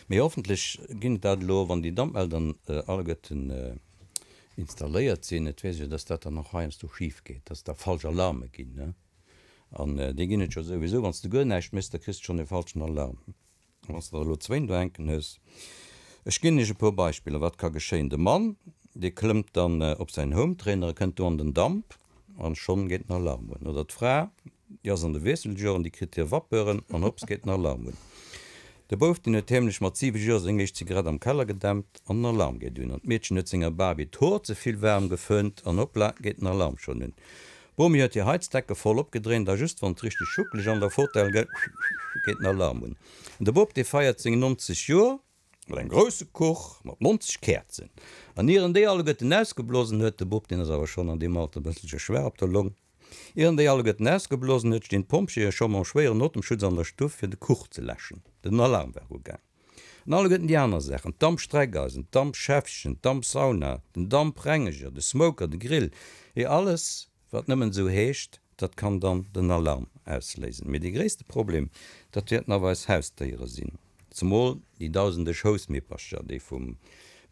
Mee hoffentlech ginn et dat elo, wann déi Dampmelder alleguerten installéiert sinn. Et weess ech jo, dass dat dann och heiansdo schif geet, dass da falsch Alarme ginn, ne? An déi ginn et jo souwisou. Wann s de guer näischt méchs, da kriss de schonn e falschen Alarm. A wann s de der elo zwéin do hänken hues. Ech ginn iech e puer Beispiller, wat ka geschéien. De Mann, dee klëmmt dann op säin Hometrainer a kënnt do an den Damp an schonn geet den Alarm un. Oder d'Fra, déi ass an de Wiesseljoren, déi kritt hir Vapeuren an hopps geet den Alarm un. De Bouf, deen huet heemlech mat 7 Joer seng éischt Zigarett am Keller gedämpt an den Alarm geet un. An d'Meedchen huet senger Barbie d'Hoer ze vill waarm geföhnt an hoppla geet den Alarm schonn un. D'Bomi huet hir Heizdecke voll opgedréint a just wann et richteg schuckeleg an der Fotell gëtt, geet den Alarm un. An de Bop, dee feiert seng 90 Joer mat engem grousse Kuch mat 90 Käerzen. An ier en déi alleguerten ausgeblosen huet, de Bop, deen ass awer schonn an deem Alter e bësselche schwaach op der Long, ier en déi alleguerten ausgeblosen huet, stinn d'Pompjeeë scho mam schwéieren Otemschutz an der Stuff fir de Kuch ze läschen. Den Alarm war ugaang. An alleguerten déi aner Saachen, d'Dampstreckeisen, d'Dampschäffchen, d'Dampsauna, den Damprengeger, de Smoker, de Grill, je alles, wat nëmmen esou heescht, dat kann dann den Alarm ausléisen. Mee dee gréisste Problem, dat wäerten awer eis Hausdéiere sinn, zemol déi dausende Schoussmippercher, déi vum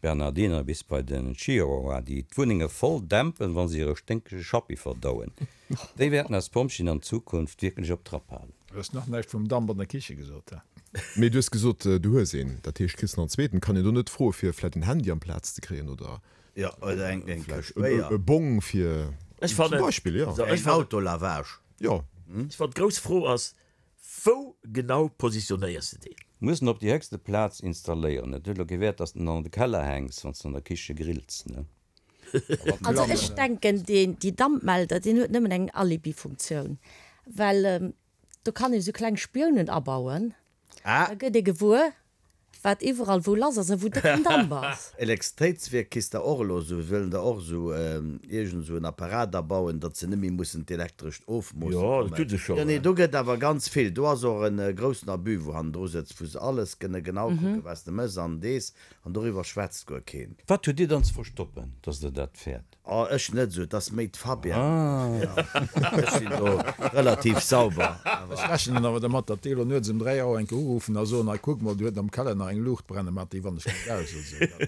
Bernardiner bis bei den Chihuahua, déi d'Wunnenge voll dämpen, wa se hire sténkege Schappi verdauen. Déi wäerten eis Pompjeeën an Zukunft wierklech op Trapp halen. Du hues nach näischt vum Damp an der Kiche gesot, he? Mee du hues gesot, du hues een. Dat heescht, kriss nach en zweeten. Kann een do net froe fir vläit en Handy amplaz ze kréien oder Jo, oder eng eng vläicht Këscht Béier. e Bong fir, Ech zum fannen, Beispill, jo. so, ech Eng fannen, Autolavage. Jo. ech fannen, d'grouss Fro ass, Wou genau positionéiers de deen? Muss en op déi héchste Plaz installéieren. Et huet elo kee Wäert, dass de en an de Keller hänks, wann s de an der Kiche grills, ne? Also ech denken, deen, déi Dampmelder, deen huet nëmmen eng Alibi-Funktioun, well do kann ee sou kleng Spiounen abauen, da gëtt ee gewuer, wat iwwerall wou lass ass a wou décken Damp ass. Elektrizitéitswierk kriss der och elo esou, wëllen der och esou iergend esou en Apparat abauen, datt se net méi mussen d'Elektrescht ofmoosse Jo, dat kommen. hu se scho. Jo, nee, do gëtt awer ganz vill. Do ass och en groussen Abus, wou hannendru sëtzt, wou se alles kënne genau kucken, wat s de mëss an dees, an doriwwer schwätzt guer keen. Wat hutt Dir dann ze verstoppen, datt Der dat fäert? Oh, ech net esou, et ass méi d'Fabienne. Ech sinn do relativ sauber. Ech rechnen awer dermat, datt déi elo nuets ëm 3 Auer eng Kéier uruffen a soen, hei kuck mol, do huet am Keller nach eng Luucht brennen, mat déi wann ech net aus oder esou.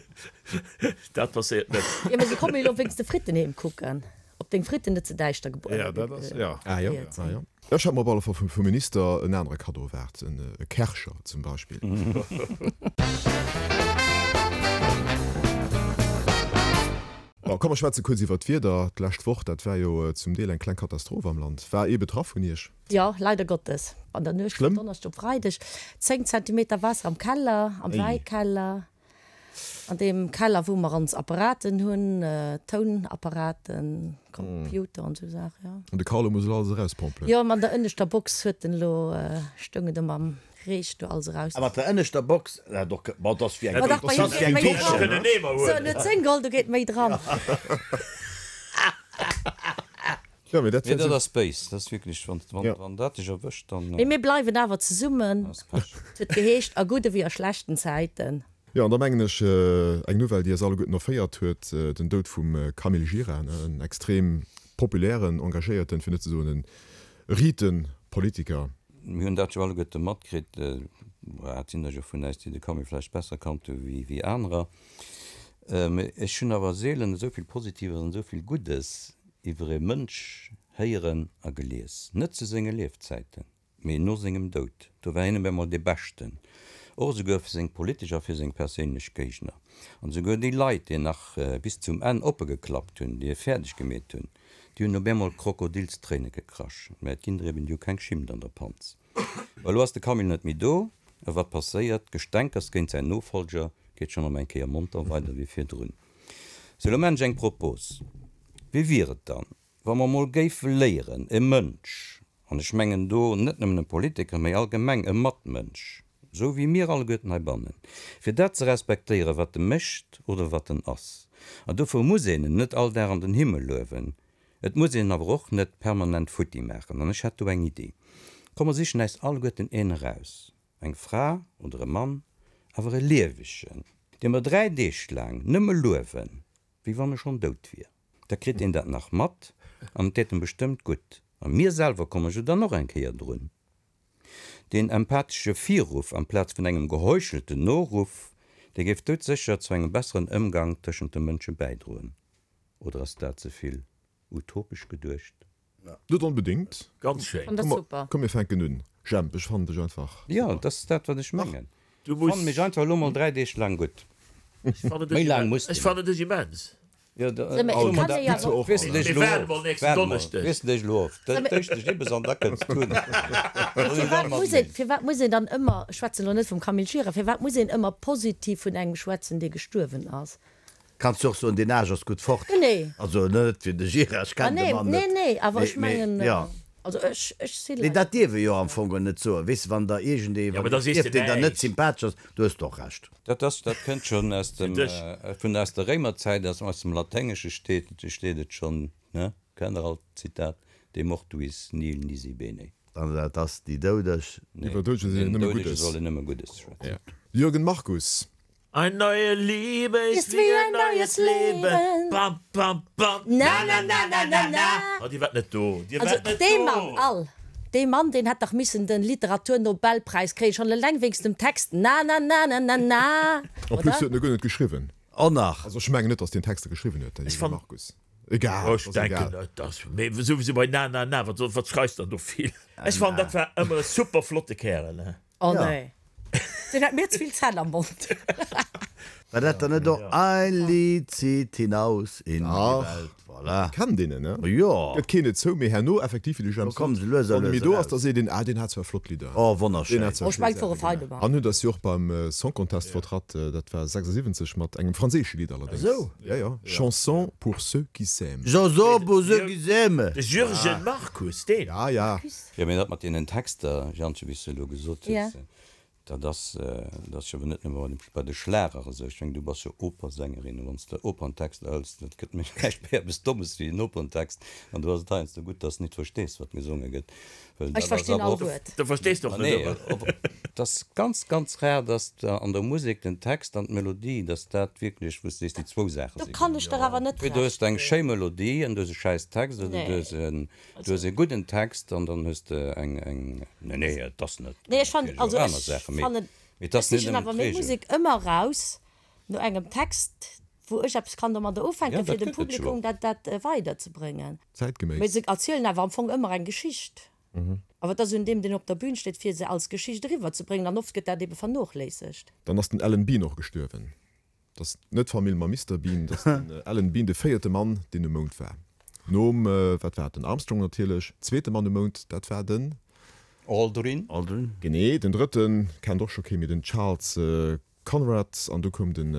Dat passéiert net. Jo, mee se komme jo elo wéinst de Fritten heem kucken, ob deng Fritten net ze däischter gebrot Jo, dat ass, jo. Ah jo, ah jo. Ech hat mer op alle Fall vum Minister en anere Kaddo erwaart, e Kärcher zum Beispill. Bon, komm mer schwätze kuerz iwwert d'Wieder. D'lescht Woch, dat war jo zum Deel eng kleng Katastroph am Land. War ee betraff vun Iech? Jo, leider Gottes. An der Nuecht vun Donneschdeg op Freideg 10 Zentimeter Waasser am Keller, am Wäikeller, an deem Keller wou mer ons Apparaten hunn, Tounapparaten, Computer an esou Saachen, jo. An de Carlo muss elo alles erauspompelen? Jo, an der ënneschter Box huet en elo, stoung et ëm am Reech do alles eraus. A mat der ënneschter Box, dat och, ma dat ass wéi eng, Ma dach, bei him geet méi dran. Sou, en huet 10 geholl, do geet méi dran. Jo, mee dat Nee, dat ass béis. Dat ass wierklech, wann, wann, wann dat dech erwëscht, dann. Mee mir bleiwen awer zesummen. Ass Pech. Et huet geheescht, a gudde wéi a schlechten Zäiten. Jo, an da mengen ech, eng Nouvelle, déi eis alleguerten erféiert huet, den Doud vum Camille Gira, en extrem populären, engagéierten, fir net ze soen e riite Politiker. Mir hunn dat jo alleguerte matkritt, et sinn der jo vun äis, déi de Camille vläicht besser kannt hu wéi anerer. Mee ech hunn awer seelen esou vill Positives an esou vill Guddes iwwer e Mënsch héieren a gelies. Net zu senge Liefzäiten, mee no sengem Doud. Do war hien op eemol dee Beschten, och esouguer fir seng politesch a fir seng perséinlech Géigner. An esouguer déi Leit, déi nach bis zum Enn oppe geklappt hunn, déi e fäerdeg gemeet hunn, Déi hunn op eemol Krokodilstréine gekrasch. Mä et ginn der eben, déi hu keng Schimmt an der Panz. Mä elo ass de Camille net méi do, a wat passéiert? D'Gestänkers géint säin Nofolger geet schonn erëm eng Kéier monter weider wéi virdrun. Sou, elo maan ech eng Propos, Wéi wier et dann, wa mer mol géife léieren, e Mënsch, an ech mengen do net nëmmen e Politiker, mä allgemeng e Matmënsch, esou wéi mir alleguerten heibannen, fir dat ze respektéieren, wat e mécht oder wat en ass. An dofir muss een en net all Dag an den Himmel luewen, et muss een en awer och net permanent futti maachen. An ech hätt do eng Iddi, Komm mer sichen äis alleguerten een eraus, eng Fra oder e Mann, awer e liewegen, dee mer 3 Deeg laang nëmme luewen, wéi wann e schonn dout wier. Da kritt een dat nach mat an et deet em bestëmmt gutt. A mir selwer komme jo dann och eng Kéier drun. Deen empathesche Virruff amplaz vun engem geheuchelten Noruff, dee géif doudsécher zu engem besseren Ëmgang tëschent de Mënsche bäidroen. Oder ass dat ze vill utopesch geduecht? Net onbedéngt. Ganz schéin. Fand dat super. Komm mir fänken un. Jemp, ech fannen dech einfach super. Jo, dat ass dat wat ech mengen. Fann mech einfach elo mol 3 Deeg laang gutt. Méi laang muss de Ech fannen dech immens. Jo, da soe mer dat net. Weess de dech elo of. Waart mol, weess de dech elo of. Dat dësch dech ibbes an da kënns du. Firwat muss een, firwat muss een dann ëmmer, ech schwätzen elo net vum Camille Gira, firwat muss een ëmmer positiv vun engem schwätzen, dee gestuerwen ass? Kanns du och soen, deen Aarsch ass gutt fort. Genee. Also net fir de Gira, ech kennen de Mann net. Nee, nee, awer ech mengen, also ech, ech si Nee, dat dierf ee jo am Fong net soen, weess de, wann der iergendee, wann ee stierft, deen der net sympathesch ass, du hues de och Recht. Dat ass, dat kënnt schonn aus dem, vun aus der Réimerzäit, aus aus dem Laténgesche steet, steet et schonn, ne? Kennt der all d'Zitat, De mortuis nihil nisi bene. An dat ass déi Doudeg. Nee, Iwwer Doudege soll een nëmme Guddes. Soll een nëmme Guddes schwätzen. Jürgen Markus. Ein neue Liebe ist wie ein neues Leben, bam bam bam, na na na na na na. Oh, Dir waart net do, Dir Also waart net dee Mann do. all, dee Mann, deen hätt dach missen den Literaturnobelpräis kréien, schonn eleng wéinst dem Text na na na na na na, En plus oder? huet en e guer net geschriwwen. Oh nach! Also ech mengen net, datt deen Texter geschriwwen huet, de Ech Jürgen fann, Markus. Egal, ech ass denken egal. et ass, mee souwisou bei na na na, wat soll, wat schreifs dann do vill? Ech fannen, dat war ëmmer e super flotte Kärel, he. Oh nee, deen hat mir ze vill Zänn am Mond. War dat dann net och Ein Lied zieht hinaus in die Welt? Voilà. Kennt een en, ne? Jo. Gëtt keen et zou, mee herno effektiv, wéi de Jemp sot, wann e méi do ass, da seet een, ah, deen hat zwar flott Lidder. Oh, wonnerschéin. Deen hat zwar schéi Saache gemaach. An huet eis jo och beim Song Contest vertratt, dat war 76, mat engem franséische Lidd allerdéngs. Esou? Jo, jo, Chanson pour ceux qui s'aiment. Chanson pour ceux qui s'aiment. De Jürgen Markus, deen? Ja, ja. Jo, mee dat mat deenen Texter, Jantje, wéi s de elo gesot hues, Dat ass, dat ass jo awer net nëmme bei de Schlager esou. Ech mengen, du bass jo Opersängerin, a wann s de Operntexter hëls, dat gëtt méi näischt méi eppes Dommes wéi en Operntext. An do ass et heiansdo gutt, dass s nit verstees, wat gesonge gëtt, well Ech dat ass verstinn awer all och. Wuert. Du verstees och Ma net nee, ëmmer. op, et ass ganz, ganz rar, dass de an der Musek den Text an d'Melodie, dass dat wierklech, wou s de sees, déi zwou Saache Do si kann ech der awer net Entweder hues Recht de eng ginn. schéi Melodie an du hues e schäiss Text, oder du Nee. hues en Du hues e gudden Text an dann hues de eng, eng, nee, nee, et ass net, Nee, ech fannen, natierlech also och aner ech Saachen, mee, fannen, mee et ech ass net sichen nëmmen awer meng d'Reegel. Musek ëmmer raus no engem Text, wou ech eppes kann domadder Ja, ufänken, fir dat dem gëtt et jo Publikum och. dat, dat weiderzebréngen. Zäitgeméiss. Mee se erzielen awer am Fong ëmmer eng Geschicht. Awer et ass un deem, deen op der Bühn steet, fir se als Geschicht eriwwerzebréngen, an oft gëtt dat ebe vernochléissegt. Dann ass den Alan Bean och gestuerwen. 't ass net d'Famill mam Mister Bean, 't ass den Alan Bean, de véierte Mann, deen um Mound war. Nom, wat war et, den Armstrong natierlech. Zweete Mann um Mound, dat war den. Aldrin. Aldrin. Genee. Den drëtte kennt och scho kee méi, den Charles Conrad. An du koum den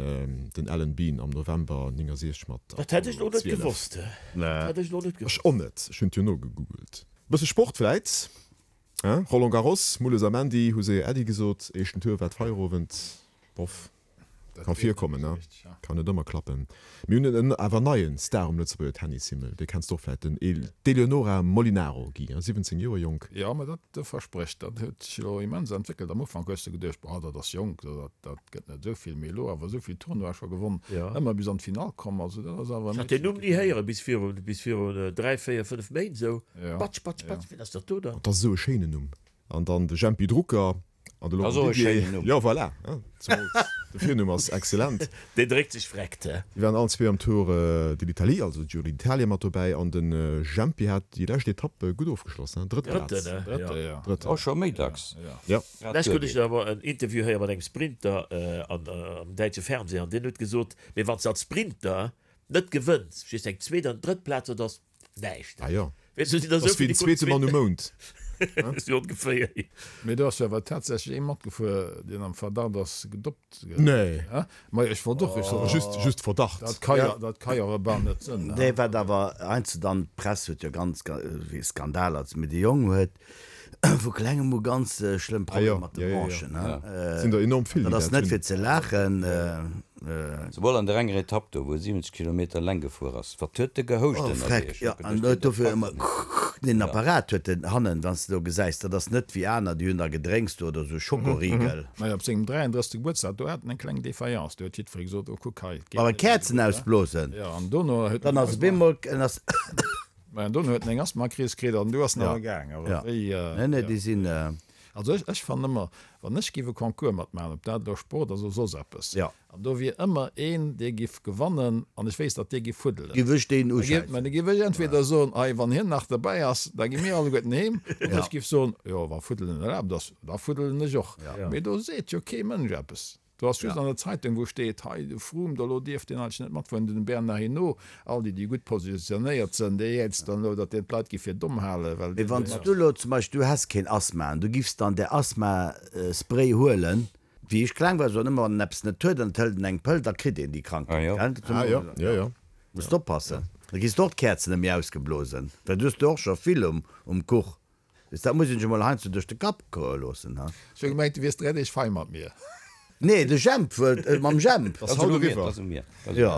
den Alan Bean am November 69 mat Dat hätt ech Apollo lo net 12. gewosst. Dat hätt ech lo net Ech gewosst. och net, ech hunn et jo nogegoogelt. Bësse Sport vläit, hein? Roland Garros, Mulles a Mandy hu séier Äddi gesot. Éischten Tour war d'Feierowend. Boff. Ka virkommen, ne? Kann net ëmmer klappen. Mir hunn en awer neien Star um Lëtzebuerger Tennishimmel, dee kenns de och vläit, den d'Eleonora Molinaro, Guy, 17 Joer jonk. Jo, mä dat versprécht, dat huet sech elo immens entwéckelt. Am Ufank hues de geduecht, boah, dat ass jonk, dat dat gëtt net esou vill, mee elo awer esou vill Tournoie scho gewonn, ëmmer bis an d'Finall komm, also dat ass awer e Ech hat deen Meedchen. Numm ni héieren bis virun bis virun 3, 4, 5 Méint esou. Batsch, batsch, batsch, wien ass dat do dann? Dat ass esou e schéinen Numm. An dann de Jempy Drucker an de Laurent Didier. Jo, voilà, zemools de Virnumm ass excellent. Deen dréckt sech vreckt, he? Déi waren allen zwee am Tour de l'Italie, also Giro d'Italia mat dobäi. An de Jempy hat déi lescht Etapp gutt ofgeschloss, he? Drëtt Plaz. Drëtten, he? Drëtte, jo. Drëtten. Oh, scho méi dacks. Jo. Lescht hunn ech awer en Interview héiere mat engem Sprinter am däitsche Fernseh an deen huet gesot, mee wann s de als Sprinter net gewënns, just eng zweet an drëtt Plaz, dat ass Näischt. Ah jo. Weess du, sinn der Ass esou wéi vill, den déi kruten zweete Mann um Mound. Sou ongeféier. Mee do ass jo awer tatsächlech ee matgefuer, deen am Verdacht ass, gedoppt ze ginn. Nee. Majo, ech wollt och, ech sot, Just, just Verdacht. Dat ka jo, dat ka jo awer bal net sënn. Nee, wat awer heiansdo dann, d'Press huet jo ganz, wéi Skandaler, mee de Jong huet vu klengem u ganz schlëmm Problemer mat de Bronchen. Sinn der enorm vill, déi Dat ass dat net hunn. fir ze laachen. Souwuel an der enger Etapp do, wou e 70 Kilometer leng gefuer ass. Wat huet de gehouscht Oh ënnerwee? freck, Ech hu jo, an geduecht, huet dee dofir packt ëmmer et net. deen Apparat huet en hannen, wann s de do gesäis, dat ass net wéi aner, déi hunn da Gedrénks do oder sou Schokoriegel. Majo, op sengem 33. Gebuertsdag, do hat en eng kleng Défaillance, do huet jiddweree gesot, oh kuck hei, et geet Awer net méi Käerzen gutt, ausblosen, Jo, an dono huet dann ass op eemol, en ass. Mä dono huet en eng Asthmakris kritt an du ass en awer gaang. Awer Ja, wéi, nee, nee, ja. déi sinn. Also ech, ech fannen ëmmer, wann ech giff e Concours matmaachen, ob dat elo Sport ass oder soss eppes, Ja. an do wier ëmmer een, dee giff gewannen an ech wéisst, datt dee giff fuddelen, Giff ech deen da giff, uschäissen. mä da giff ech entweder soen, hei, wann hien nach derbäi ass, da gi mir alleguerten heem, oder ech giff soen, jo, wa fuddelen erlaabt ass, da fuddelen ech och. Mee do seet jo kee Mënsch eppes. Do ass just an der Zeitung, wou steet, hei de Froome, do elo dierf deen eigentlech net matfueren, den Bernard Hinault, all déi, déi gutt positionéiert sënn, déi jäizt dann elo, datt deen d'Leit gi fir domm halen, well Mee wann s du elo zum Beispill, du häss keen Asthma an du giffs dann där Asthma-Spray huelen, wéi ech kleng war, soen ëmmer, wann en eppes net huet an et hëlt en eng Pëll, da kritt een déi Krankheet, gell? Ah jo, jo, jo. Muss de oppassen, da kriss de och d'Käerzen net méi ausgeblosen, well du hues der och scho vill um Kuch. Weess, dat muss een sech emol heiansdo duerch de Kapp goe loossen, ha? Ech hu gemengt, du wiers 3 Deeg fei mat mir. Nee, de Jemp wëllt, mam Jemp. Ass haut eriwwer. Jo,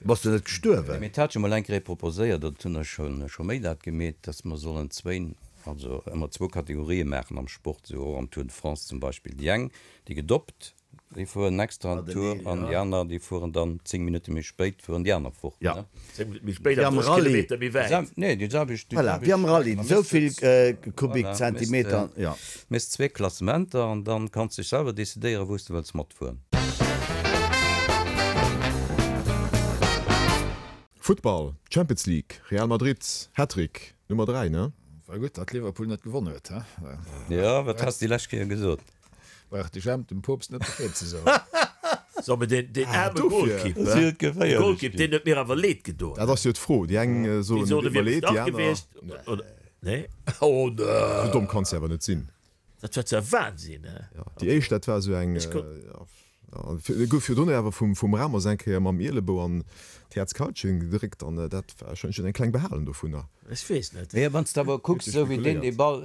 bass du net gestuerwen? Mee et hat jo mol eng Kéier ee proposéiert, dat hunn ech scho méi dat gemeet, dass mer sollen zwéin, also ëmmer zwou Kategorië maachen am Sport, esou och am Tour de France zum Beispill, déi eng, déi gedoppt Déi fueren extra en Tour an déi aner, déi fueren dann 10 Minutte méi spéit, fueren déi aner fort. Ja. 10 Minutte méi spéit Wéi an am 30 Rallye. Kilometer méi wäit. Nee, déi selwecht. Voilà, wéi am Rallye, esou vill Kubikzentimeter, ja. Méchs zwee Klassementer an dann kanns dech selwer decidéieren, wou s de wëlls matfueren. Futtball, Champions League, Real Madrid, Hattrick Nummer 3, ne? War gutt, datt Liverpool net gewonnen huet, he? Jo, wat has de déi lescht Kéier gesot? Brauch de Jemp dem Poopst net Bescheed ze soen. So, mee deen, deen aarme Golkipp, de Golkipp, deen huet mir awer leed gedoen. Dat ass jo d'Fro. Déi eng soen, et deet mer leed, déi aner. Nee. Oh nee. Esou domm kanns de awer net sinn. Dat war zwar Wahnsinn, he? Jo, déi éischt, dat war esou eng. E gouf virdrun awer vum Ramos eng Kéier mam Ielebou an d'Häerzkaltchen gedréckt an dat war ech hunn eng kleng behalen dovunner. Ech weess net. Mee wann s de awer kucks, esou wéi deen dee Ball,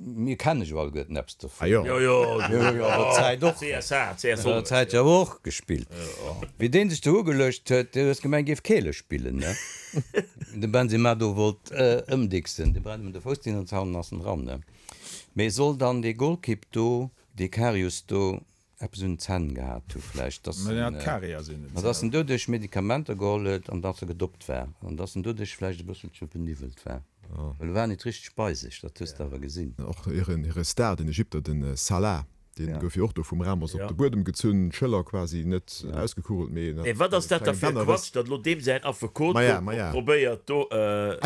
mir kenne jo alleguerten eppes dovun. Ah jo. Jo, jo, jo, jo, an der Zäit och. CSA, CS An der Zäit jo och gespillt. Wéi dee sech do ugeluecht huet, du hues gemengt, géif Keele spillen, ne? De Benzema do wollt ëmdicksen, dee brennt em de Fouss deen an d'Hannen ass en dran, ne? Mee soll dann dee Golkipp do, dee Karius do, eppes un den Zänn gehat hu vläicht, dass en, dass en doduerch Medikamenter geholl huet an dass e gedoppt war an dass en doduerch vläicht e bësselche beniwwelt war, well e war nit richteg bei sech, dat hues de awer gesinn. Och hire Star, den Ägypter, de Salah, dee gouf jo och do vum Ramos op de Buedem gezunn, d'Schëller quasi net ausgekugelt, mee Mee wat ass dat da fir e Quatsch, datt elo deem säin Affekot do probéiert do.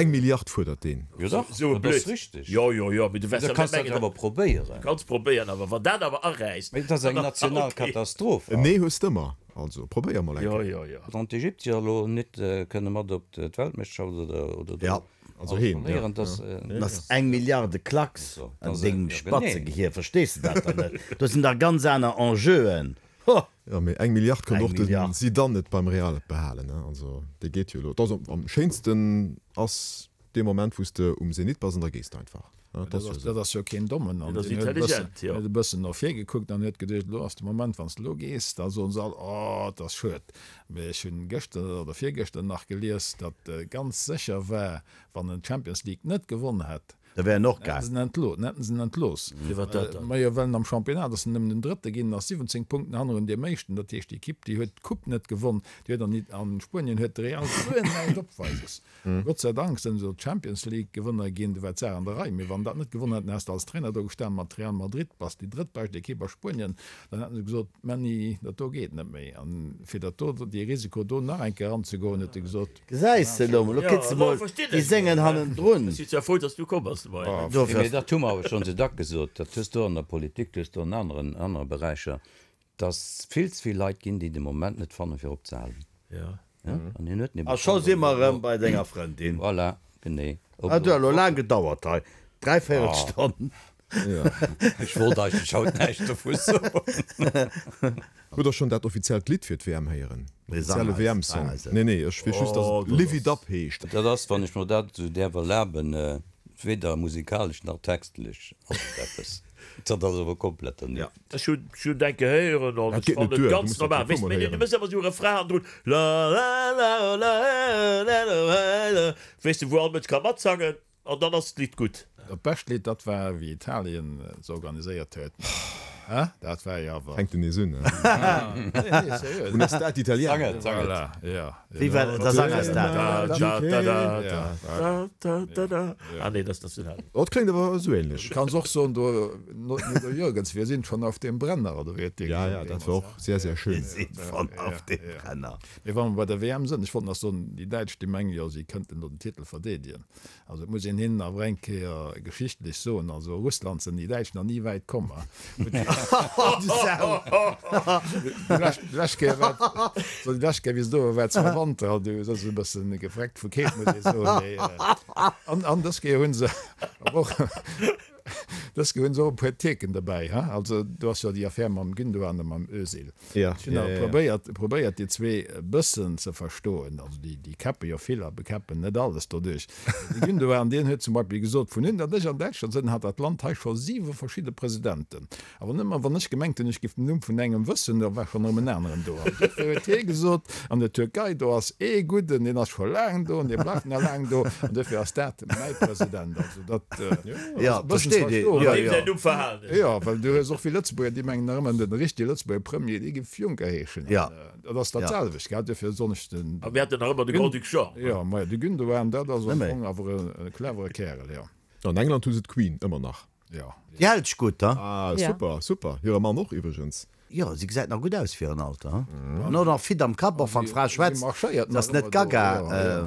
Eng Milliard fuerdert deen. Jo dach, Esou e dat ass Blödsinn. richteg. Jo, jo, jo, mee du wäers Da jo net kanns dat mengen, awer probéieren. Kanns probéieren, awer wann dat awer aräisst, Mee et ass eng dann ass national ok. Katastroph. En Nee hues d'ëmmer, also probéier mol eng Jo, Kéier. jo, jo. Wann d'Ägyptier elo net kënne mat op d'Weltmeeschterschaft oder oder do Ja. Also alles heen, ja. verléieren, dass. Dat ass eng Milliarde Klacks So, an dass dengem ja genee. Spatzegehir, verstees de dat dann net? Do sinn dach ganz aner Enjeuen. Ho! Jo, mee eng Milliard konnt Eng och de Milliard. Zidane net beim Real behalen, ne? Also dee geet jo elo. Et ass am schéinsten ass dee Moment wou s de um Zenit bass an da gees de einfach. Ne? Dat ass jo esou. Dat ass jo keen Dommen. An Dat ass deen huet e bëssen, intelligent, jo. huet e bëssen no vir gekuckt an huet geduecht, elo ass de Moment, wann s de elo gees, da soen se all, oh, et ass schued. Mee ech hunn gëschter oder virgëschter nach gelies, datt ganz sécher war, wann en d'Champions League net gewonn hätt, Da wär en och Hätten gaang. se en entlooss, hätten se en entlooss. Firwat dat dann? Majo, well en am Championnat ass en nëmmen den Drëtte ginn, ass 17 Punkten hannerun deem Éischten. Dat heescht, déi Ekipp, déi huet d'Coupe net gewonn, déi huet an an Spuenien huet de Real guer näischt opweises. Gott sei Dank sinn se elo Champions League Gewënner ginn, do war d'Saach an der Rei. Mee wann dat net gewonnen hätten, häss de als Trainer do gestan mat Real Madrid, bass déi drëttbescht Ekipp a Spuenien, dann hätten se gesot, Männi, dat do geet net méi. An fir dat do, dee Risiko do nach eng Kéier eranzegoen, huet e gesot, Gesäis de elo mol, lo kritt se mol déi sengen hannendrun. Ech si zwar frou, dass du komm bass de Moien. Dofir Mee ass. dat hu mer awer schonn sou dack gesot, dat hues du an der Politik, dat hues du an aneren, anere Beräicher, dass vill ze vill Leit ginn, déi de Moment net fannen, fir opzehalen. Ja. An hien huet en ebe A scho fonnt, si mer ob elo. erëm bei denger Frëndin. Voilà, genee. Ob Hat elo jo elo laang gedauert hei, dräivéierel Stonn. Ech wollt eigentlech haut näischt dovu soen. Hutt der schonn dat offiziellt Lidd fir d'WM héieren? Nee, sang Offizielle eis, WM-Song? sang eis et. Nee, nee, ech weess just, dass et Live It Up heescht. Dat ass, wann ech mer dat esou däerf erlaben, weder musikalesch nach textlech ass et eppes. Dat ass awer komplett dernieft. Ech hunn hunn eng Kéier héieren an Dat ech geet net fannen et duer, du ganz muss dat normal. e puer Weess de, Mol mee du héieren. méchs ëmmer esou e Refrain hannendrun, la la la la la la la, weess de, wou all Mënsch ka matsangen. An dann ass d'Lidd gutt. Dat bescht Lidd, dat war wéi Italien se organiséiert huet. Hein? Dat war jo awer. Fänkt en nees un, hein? Nee, nee, seriö. Una estate italiana. Sang et, sang et. Voilà, ja. Wéi war dat? Da sang eis dat. Da, da, da, da, da, da, da. Ah nee, dat ass Nationallidd. Oh, dat kléngt awer esou ähnlech. Du kanns och soen, do, Nudo Jürgens, wir sind schon auf dem Brenner, oder wéi huet dee Ja, ja, gesongen dat war deemools, och sehr, sehr schön. Wir sind schon auf dem Brenner. Mee wa mer bei der WM sënn, ech wollt nach soen, déi Däitsch, déi mengen jo, si kënnten do den Titel verdeedegen. Also et muss een hinnen awer eng Kéier geschichtlech soen, also Russland sinn déi Däitsch nach ni wäit komm. Déi lescht Kéier war, so déi lescht Kéier wéi se do war, war zwar Wanter, an du si se e bëssen gefreckt vu Keelt, muss ee soen, mee an, an dës Kéier hu se awer och, dës Kéier hu se och e puer Tierken dobäi, ha. Also do ass jo déi Affär mam Gündogan a mam Özil. Ja, Ech hunn ja, awer ja, ja. probéiert, probéiert déi zwee e bëssen ze verstoen. Also déi, déi käppe jo vill a bekäppen net alles doduerch. De Gündogan, deen huet zum Beispill gesot, Vun un datt ech an Däitschland sinn, hat dat Land hei scho siwe verschidde Presidenten. Awer nëmmer wann ech gemengt hunn, ech giff den Numm vun engem wëssen, da war schonn erëm en aneren do. An duerfir huet hie gesot, an der Türkei, do ass ee gudden, deen ass scho laang do an dee bleift nach laang do. An duerfir ass dat mäi President. Also dat Ja, ass e bëssen ze versteet ee. verstoen. Ja, Deem ja. säin Numm verhalen ech. Jo, well du hues och vill Lëtzebuerger, déi mengen nach ëmmer, den richtege Lëtzebuerger Premier, dee géif Juncker heeschen. Ja. An dat ass dat Ja. selwecht, gell? Duerfir soen ech den. A mir haten nach ëmmer de Grand-Duc Jean. Jo, majo, de Gündogan, dat ass am Nëmme. Fong awer e clevere Kärel, jo. An England hu se d'Queen ëmmer nach. Jo. Déi hält sech gutt, ha? Ah, Ja. super, super. Hire Mann och iwwregens. Jo, si gesäit nach gutt aus fir hiren Alter, hm? An och nach fit am Kapp, och wann d'Fra schwätzt, se ass net gaga.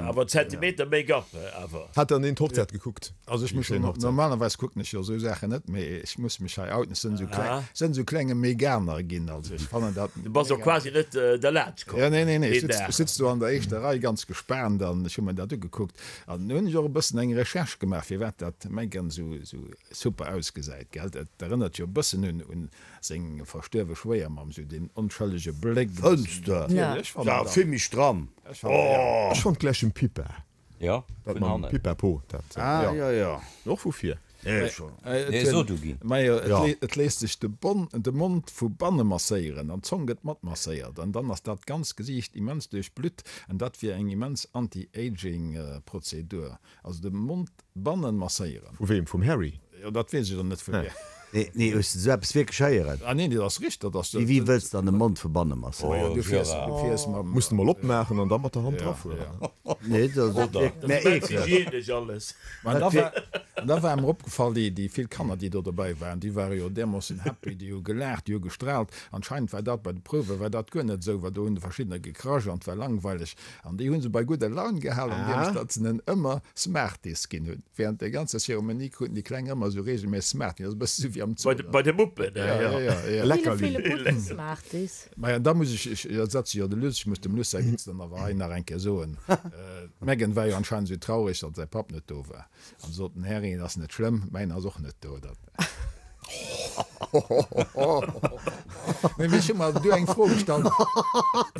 Awer Zentimeter Make-up awer. Hat dann een d'Hochzäit gekuckt? Also ech muss jo, normalerweis kucken ech jo esou Saachen net, mee ech muss mech hei outen, ech sinn esou kleng, sinn esou klenge Meganer ginn, also ech fannen dat. Du bass och quasi net derlaanscht komm. Jo, nee, nee, nee, ech sitz do an der éischter Rei ganz gespaant an ech hu mer dat ugekuckt an hunn ech och e bëssen eng Recherche gemaach, firwat dat Meghan esou super ausgesäit, gell? Et erënnert jo e bëssen un Seng verstuerwe Schwéiermamm, sou deen onschëllege Bléck. Fënns de? Ja, vill méi stramm. Oh! Ech fonnt gläich dem Pippa. Jo, Dat vun mam hannen. Pippa Po, dat, Ah, jo. jo, jo. Och vu vir. Nee, scho. Nee, so du ginn. Majo, et Ja. et léisst sech de Bon, de Mond vu banne masséieren an d'Zong gëtt mat masséiert an dann ass dat ganz Gesiicht immens duerchblutt an dat wier eng immens Anti-Aging Prozedur. Also de Mond bannen masséieren. Vu weem? Vum Harry? Jo, dat weess ech elo net vu wiem. Nee, nee, hues de sou eppes wierklech héieren? Ah nee, dat ass richteg, dat ass. Wéi, wéi wëlls de dann de Mond vu banne masséieren? Oh, du fiers, du fiers mam. Muss de mol opmaachen an da mat der Hand drafueren. Nee, dat ass Oder? mä Dat ass eekleg. hygienesch alles. Mä da war, da war mer opgefall, déi, déi vill Kanner, déi do dobäi waren, déi ware jo därmoossen happy, déi hu gelaacht, déi hu gestraalt. Anscheinend war dat bei de Prouwe war dat guer net esou, well do hunn verschiddener gekrasch an et war langweileg. An déi hu se bei gudder Laun gehalen, andeems datt se en ëmmer Smarties ginn hunn. Während der ganzer Zeremonie kruten déi Kleng ëmmer esou reegelméisseg Smarties. Dat ass e bësse esou wéi am Zoo. Bei de Muppen, ja. Ja, ja, ja. Leckerli. Ville, ville gudden Smarties. Maja, da muss ech, ech ersetze jo de Luss, ech muss dem Luss säi Witz dann awer hei nach eng Kéier soen. D'Meghan war jo anscheinend esou traureg, datt säi Papp net do war. An sot den Harry, Et ass net schlëmm, mäin ass och net do. Dat. Mee ech hu mer awer du eng Fro gestallt,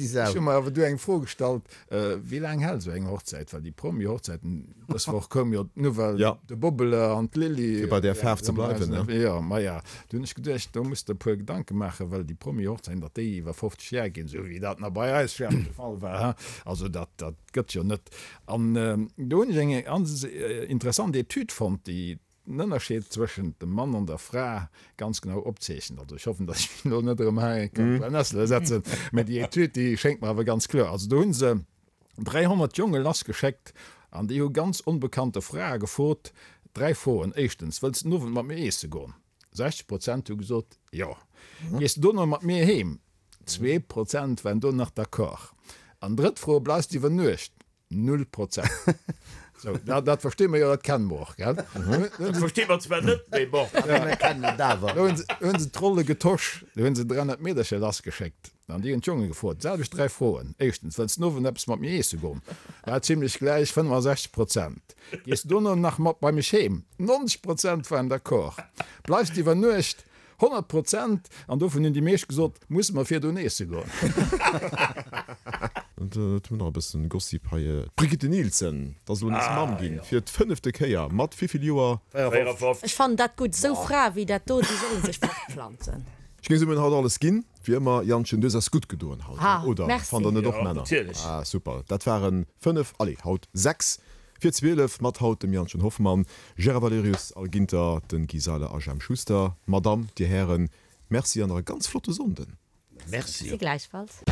ech hu mer awer du eng Fro gestallt, wéi laang hält esou eng Hochzäit? Well déi Promi-Hochzäiten, dës Woch koum jo d'Nouvelle, de Bobbele an d'Lilly. Fir bei där Faarf ze bleiwen, ne? Jo, maja, du hunn ech geduecht, do muss de e puer Gedanke maachen, well déi Promi-Hochzäiten, datt déi iwwer 50 Jar ginn, esou wéi dat nach bei eis schwäerz de Fall war, he, also dat, dat gëtt jo net. An do hunn ech eng ganz interessant Etüd fonnt, déi den Ënnerscheed zwëschent dem Mann an der Fra ganz genau opzeechent. Also ech hoffen, datt ech mech elo net erëm hei kann d'Brennessele setzen, mä déi Etüd, déi schéngt mer awer ganz kloer. Also do hu se 300 Jonge lassgeschéckt an déi hu ganz onbekannte Frae gefrot, dräi Froen, Éischtens, Wëlls de den Owend mat mir eesse goen? 60 Prozent hu gesot, Jo. Gees de dono mat mir heem? 2 Prozent waren do nach d'accord. An drëtt Fro, Bleifs de iwwer Nuecht? Null Prozent. Sou, dat, dat versti mer jo, dat kenne mer och, gell? Dat versti mer zwar net, mee bon. Mir kennen et awer. Do hunn se, hunn se d'Rolle getosch, do hunn se 300 Meedercher lassgeschéckt an déi hunn d'Jonge gefrot, d'selwecht dräi Froen. Éischtens, Wëlls den Owend eppes mat mir iesse goen? War zimlech gläich, 65 Prozent. Gees de dono nach mat bei mech heem? 90 Prozent waren d'accord. Bleifs de iwwer Nuecht? 100 Prozent, an dovun hunn déi meescht gesot, musse mer virdrun eesse goen. Et hunn nach e bëssen Gossip hei. D'Brigitte Nielsen, dat ass elo nees Mamm ginn, fir d'fënnefte Kéier. Mat wéivill Joer? 54. Ech fannen dat gutt, esou Frae wéi dat do, déi solle sech fortpflanzen. Ech géing soen, mir hunn haut alles ginn, wéi ëmmer. Jantchen, du hues eis gutt gedoen haut, oder? Merci. Fannt der net och, Jo, Männer? natierlech. Ah, super. Dat waren 5, allez, haut 6 Fir 12 mat haut dem Jantchen Hoffmann, Gérard Valerius, Al Ginter, den Guy Seiler a Jemp Schuster. Madame, Dir Hären, Merci an nach e ganz flotte Sonnden. Merci. Merci gläichfalls.